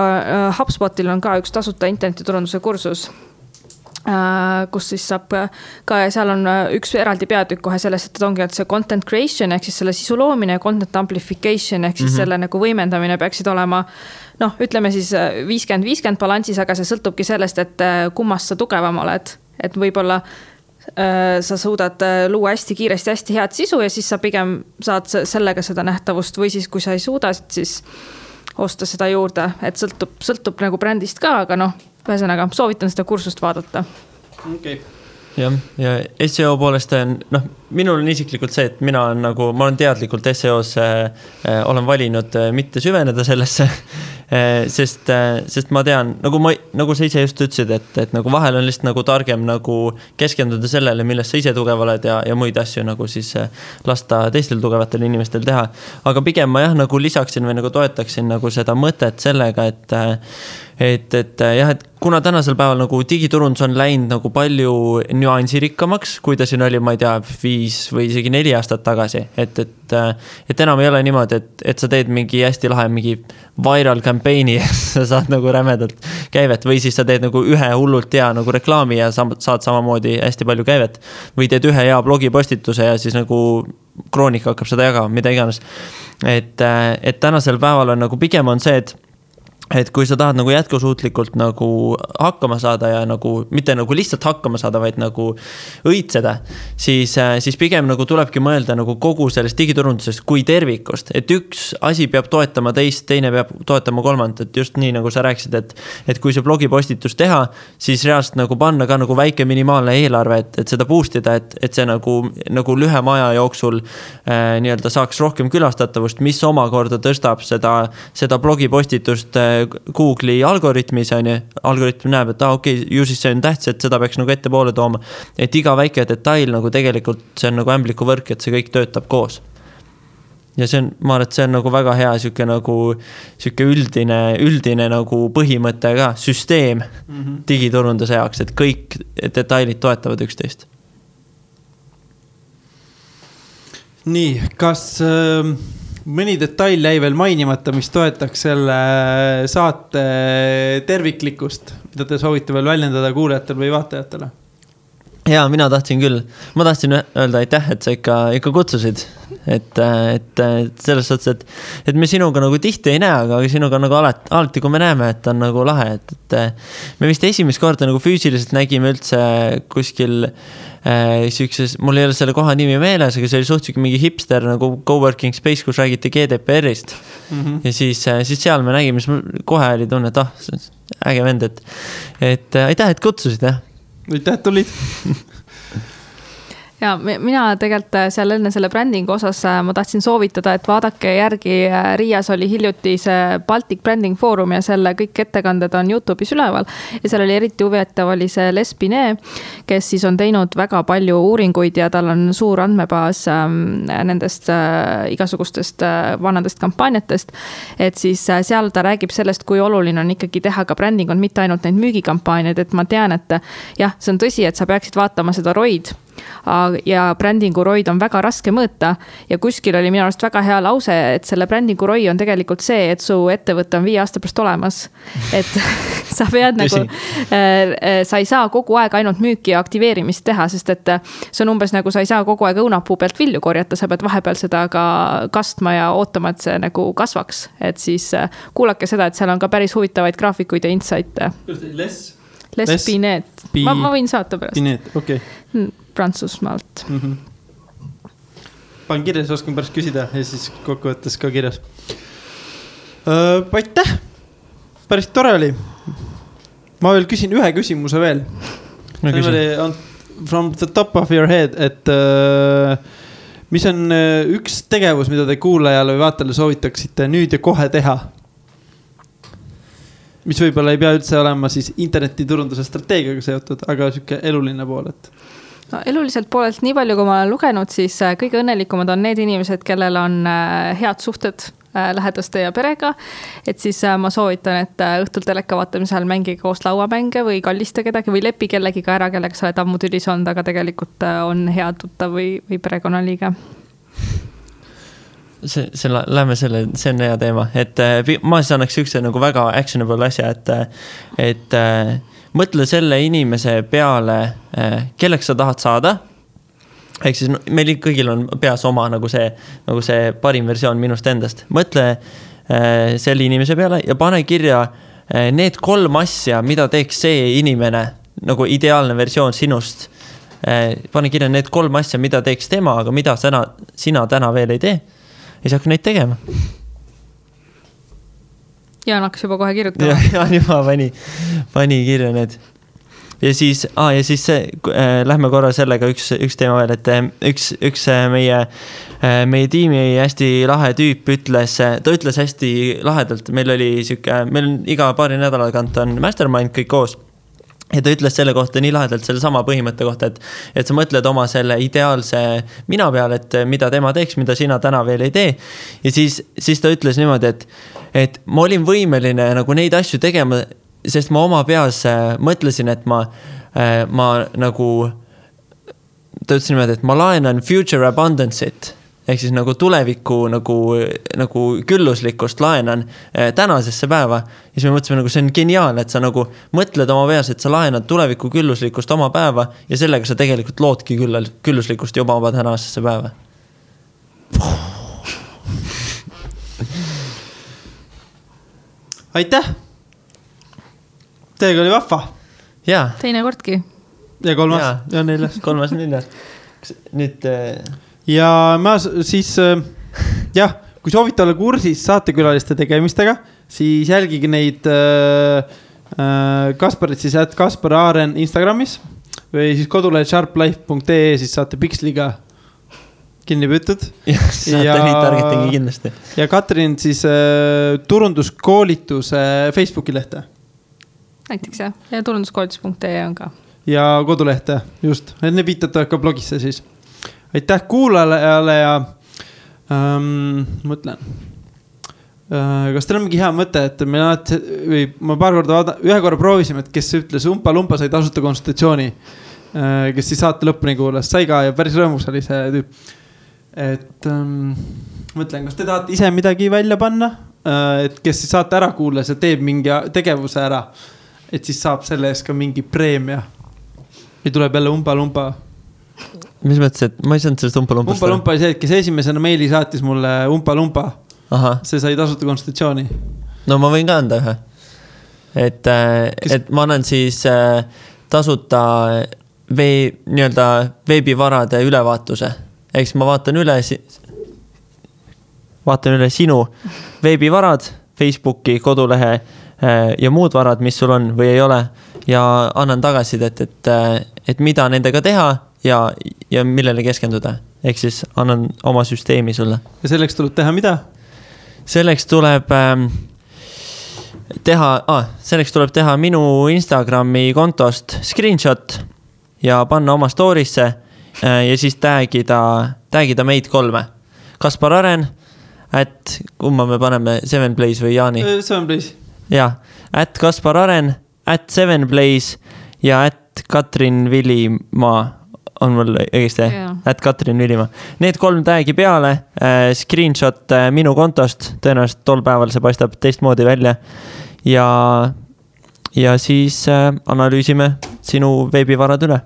HubSpotil on ka üks tasuta internetiturunduse kursus, kus siis saab ka ja seal on üks eraldi peatükk kohe sellest, et ongi, et see content creation ehk siis selle sisu loomine ja content amplification ehk siis selle nagu võimendamine peaksid olema, ütleme siis 50-50 balansis, aga see sõltubki sellest, et kummast sa tugevam oled, et võib-olla sa suudad luua hästi kiiresti hästi head sisu ja siis sa pigem saad sellega seda nähtavust või siis kui sa ei suuda, siis osta seda juurde, et sõltub nagu brändist ka, aga ühesõnaga soovitan seda kursust vaadata. Okay. Ja SEO poolest minul on isiklikult see, et ma olen teadlikult SEO-s olen valinud mitte süveneda sellesse, sest ma tean, nagu sa ise just ütlesid, et nagu vahel on lihtsalt nagu targem nagu keskenduda sellele, millest sa ise tugev oled ja muid asju nagu siis lasta teistel tugevatel inimestel teha. Aga pigem ma jah, nagu lisaksin või nagu toetaksin nagu seda mõtet sellega, et kuna tänasel päeval nagu digiturundus on läinud nagu palju nüansirikkamaks, kui ta siin oli, ma ei tea, 5 või isegi 4 aastat tagasi, et enam ei ole niimoodi, et sa teed mingi hästi lahe mingi viral campaign'i ja sa saad nagu rämedalt käivet või siis sa teed nagu ühe hullult hea nagu reklaami ja saad samamoodi hästi palju käivet või teed ühe hea blogipostituse ja siis nagu Kroonika hakkab seda jagama, mida iganes. Et tänasel päeval on nagu pigem on see, et kui sa tahad nagu jätkusuutlikult nagu hakkama saada ja nagu mitte nagu lihtsalt hakkama saada, vaid nagu õitseda, siis pigem nagu tulebki mõelda nagu kogu sellest digiturundusest kui tervikust, et üks asi peab toetama teist, teine peab toetama kolmandat, et just nii nagu sa rääkisid, et kui see blogipostitus teha, siis reaalselt nagu panna ka nagu väike minimaalne eelarve, et seda boostida, et see nagu lühema aja jooksul nii-öelda saaks rohkem külastatavust, mis omakorda tõstab seda blogipostitust Google'i algoritmis on ju, algoritm näeb, et okei, ju siis see on tähtis, et seda peaks nagu ette poole tooma, et iga väike detail nagu tegelikult see on nagu ämbliku võrk, et see kõik töötab koos. Ja see on, ma arvan, et see on nagu väga hea siuke üldine nagu põhimõte ka, süsteem digiturunduse jaoks, et kõik detailid toetavad üksteist. Nii, kas mõni detail jäi veel mainimata, mis toetaks selle saate terviklikkust, mida te soovite veel väljendada kuulajatele või vaatajatele? Jaa, mina tahtsin küll. Ma tahtsin öelda aitäh, et sa ikka kutsusid. Et selles suhtes, et me sinuga nagu tihti ei näe, aga sinuga nagu alati kui me näeme, et on nagu lahe. Et me vist esimest korda nagu füüsiliselt nägime üldse kuskil sükses, mul ei ole selle koha nimi meeles, aga see oli suhteliselt mingi hipster nagu coworking space, kus räägiti GDPR-ist. Ja siis seal me nägime, siis kohe oli tunne, et äge vend, et aitäh, et kutsusid, jah. Aitäh, et tulid. Ja mina tegelikult seal enne selle brändingu osas ma tahtsin soovitada, et vaadake järgi, Riias oli hiljuti see Baltic Branding Forum ja selle kõik ettekanded on YouTube'is üleval ja seal oli eriti huvitav oli see Les Binet, kes siis on teinud väga palju uuringuid ja tal on suur andmebaas nendest igasugustest vanadest kampaaniatest, et siis seal ta räägib sellest, kui oluline on ikkagi teha ka bränding on mitte ainult neid müügikampaaniaid, et ma tean, et jah, see on tõsi, et sa peaksid vaatama seda ROID ja brändingu ROI on väga raske mõõta ja kuskil oli minu arust väga hea lause, et selle brändingu ROI on tegelikult see, et su ettevõte on 5 aasta pärast olemas, et sa pead nagu, sa ei saa kogu aeg ainult müüki ja aktiveerimist teha, sest et see on umbes nagu sa ei saa kogu aeg õunapuu pealt vilju korjata, sa pead vahepeal seda ka kastma ja ootama, et see nagu kasvaks, et siis kuulake seda, et seal on ka päris huvitavaid graafikuid ja insighte. Les Binet, ma võin saata pärast. Binet, okei. Prantsusmaalt. Panen kirjas, oskan pärast küsida ja siis kokkuvõttes ka kirjas. Aitäh! Päris tore oli. Ma veel küsin ühe küsimuse veel. From the top of your head, et mis on üks tegevus, mida te kuulajale või vaatajale soovitaksite nüüd ja kohe teha? Mis võib-olla ei pea üldse olema siis internetiturunduse strateegiaga seotud, aga siuke eluline pool, et no, eluliselt poolelt nii palju, kui ma olen lugenud, siis kõige õnnelikumad on need inimesed, kellel on head suhted lähedaste ja perega, et siis ma soovitan, et õhtul teleka vaatamisel mängige koos lauamänge või kallista kedagi või lepi kellegiga ära, kellega sa oled ammu tülis olnud, aga tegelikult on hea tuttav või perekonnaliige. Lähme see on hea teema, et ma siis annaks ükse nagu väga actionable asja, et mõtle selle inimese peale, kelleks sa tahad saada. Ehk siis meil kõigil on peas oma nagu see parim versioon minust endast. Mõtle selle inimese peale ja pane kirja need 3 asja, mida teeks see inimene, nagu ideaalne versioon sinust. Pane kirja need 3 asja, mida teeks tema, aga mida sina täna veel ei tee. Ja siis hakka neid tegema. Jaan hakkas juba kohe kirjutama. Jaan juba pani kirja need. ja siis see, lähme korra sellega üks teema veel, et üks meie tiimi hästi lahe tüüp ütles hästi lahedalt, meil on iga paari nädala tagant on mastermind kõik koos. Ja ta ütles selle kohta nii lahedalt selle sama põhimõtte kohta, et sa mõtled oma selle ideaalse mina peale, et mida tema teeks, mida sina täna veel ei tee. Ja siis ta ütles niimoodi, et ma olin võimeline nagu neid asju tegema, sest ma oma peas mõtlesin, et ma nagu, ta ütles niimoodi, et ma laenan future abundance'it. Ehk siis nagu tuleviku nagu külluslikkust laenan tänasesse päeva. Ja siis me mõtlesime, nagu see on geniaalne, et sa nagu mõtled oma peas, et sa laenad tuleviku külluslikkust oma päeva ja sellega sa tegelikult loodki külluslikkust juba oma tänasesse päeva. Aitäh! Teiega oli vahva. Jaa. Teine kordki. Ja kolmas ja neljas. Kolmas neljas. Nüüd... Ja ma siis, kui soovite olla kursis saatekülaliste tegemistega, siis jälgige neid Kasparit siis @Kaspar Aaren Instagramis või siis kodulehed sharplife.ee, siis saate Pixliga kinni püütud. Saate liitargetingi kindlasti. Ja Katrin siis turunduskoolituse Facebooki lehte. Näiteks jah, ja turunduskoolitus.ee on ka. Ja kodulehte, just. Need viitate ka blogisse siis. Aitäh kuulajale ja mõtlen. Kas teil on mingi hea mõte, et ma paar korda ühe korra proovisime, et kes ütles Umpa sai tasuta konsultatsiooni, kes siis saate lõpuni kuulas, sai ka ja päris rõõmus oli see tüüp. Et mõtlen, kas te tahate ise midagi välja panna, et kes siis saate ära kuulas ja teeb mingi tegevuse ära, et siis saab selle ees ka mingi preemia. Või tuleb jälle Umpa. Mis mõttes, et ma ei saanud sellest Umpa-Lumpast? Umpa oli see, et kes esimesena meili saatis mulle Umpa. See sai tasuta konsultatsiooni. No ma võin ka anda ühe. Et ma annan siis tasuta nii-öelda veebivarade ülevaatuse. Eks ma vaatan üle sinu veebivarad, Facebooki, kodulehe ja muud varad, mis sul on või ei ole. Ja annan tagasidet, et mida nendega teha ja millele keskenduda. Ehk siis annan oma süsteemi sulle. Ja selleks tuleb teha mida? Selleks tuleb teha minu Instagrami kontost screenshot ja panna oma story'sse ja siis tagida meid 3. Kaspar Aren, kumma me paneme 7Blaze või Jaani? 7Blaze. Jah, @Kaspar Aren, @7Blaze ja @Katrin Villimaa on mul õigesti, @Katrin Villimaa. Need 3 tagi peale, screenshot minu kontost, tõenäoliselt tol päeval see paistab teistmoodi välja ja siis analüüsime sinu veebivarad üle.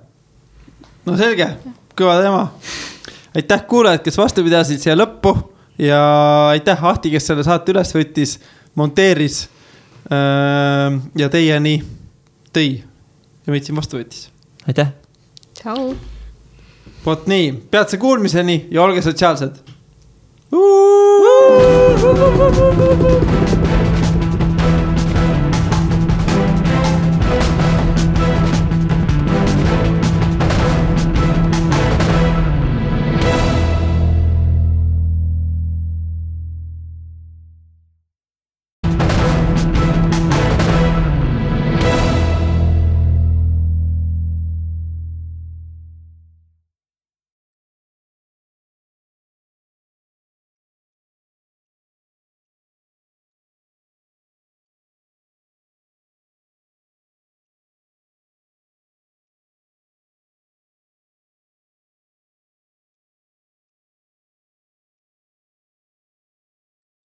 No selge, kõva teema. Aitäh kuulajad, kes vastu pidasid siia lõppu ja aitäh Ahti, kes selle saate üles võttis, monteeris ja teieni tõi ja meid siin vastu võttis. Aitäh. Tšau. Vot nii, peatse kuulmiseni ja olge sotsiaalsed.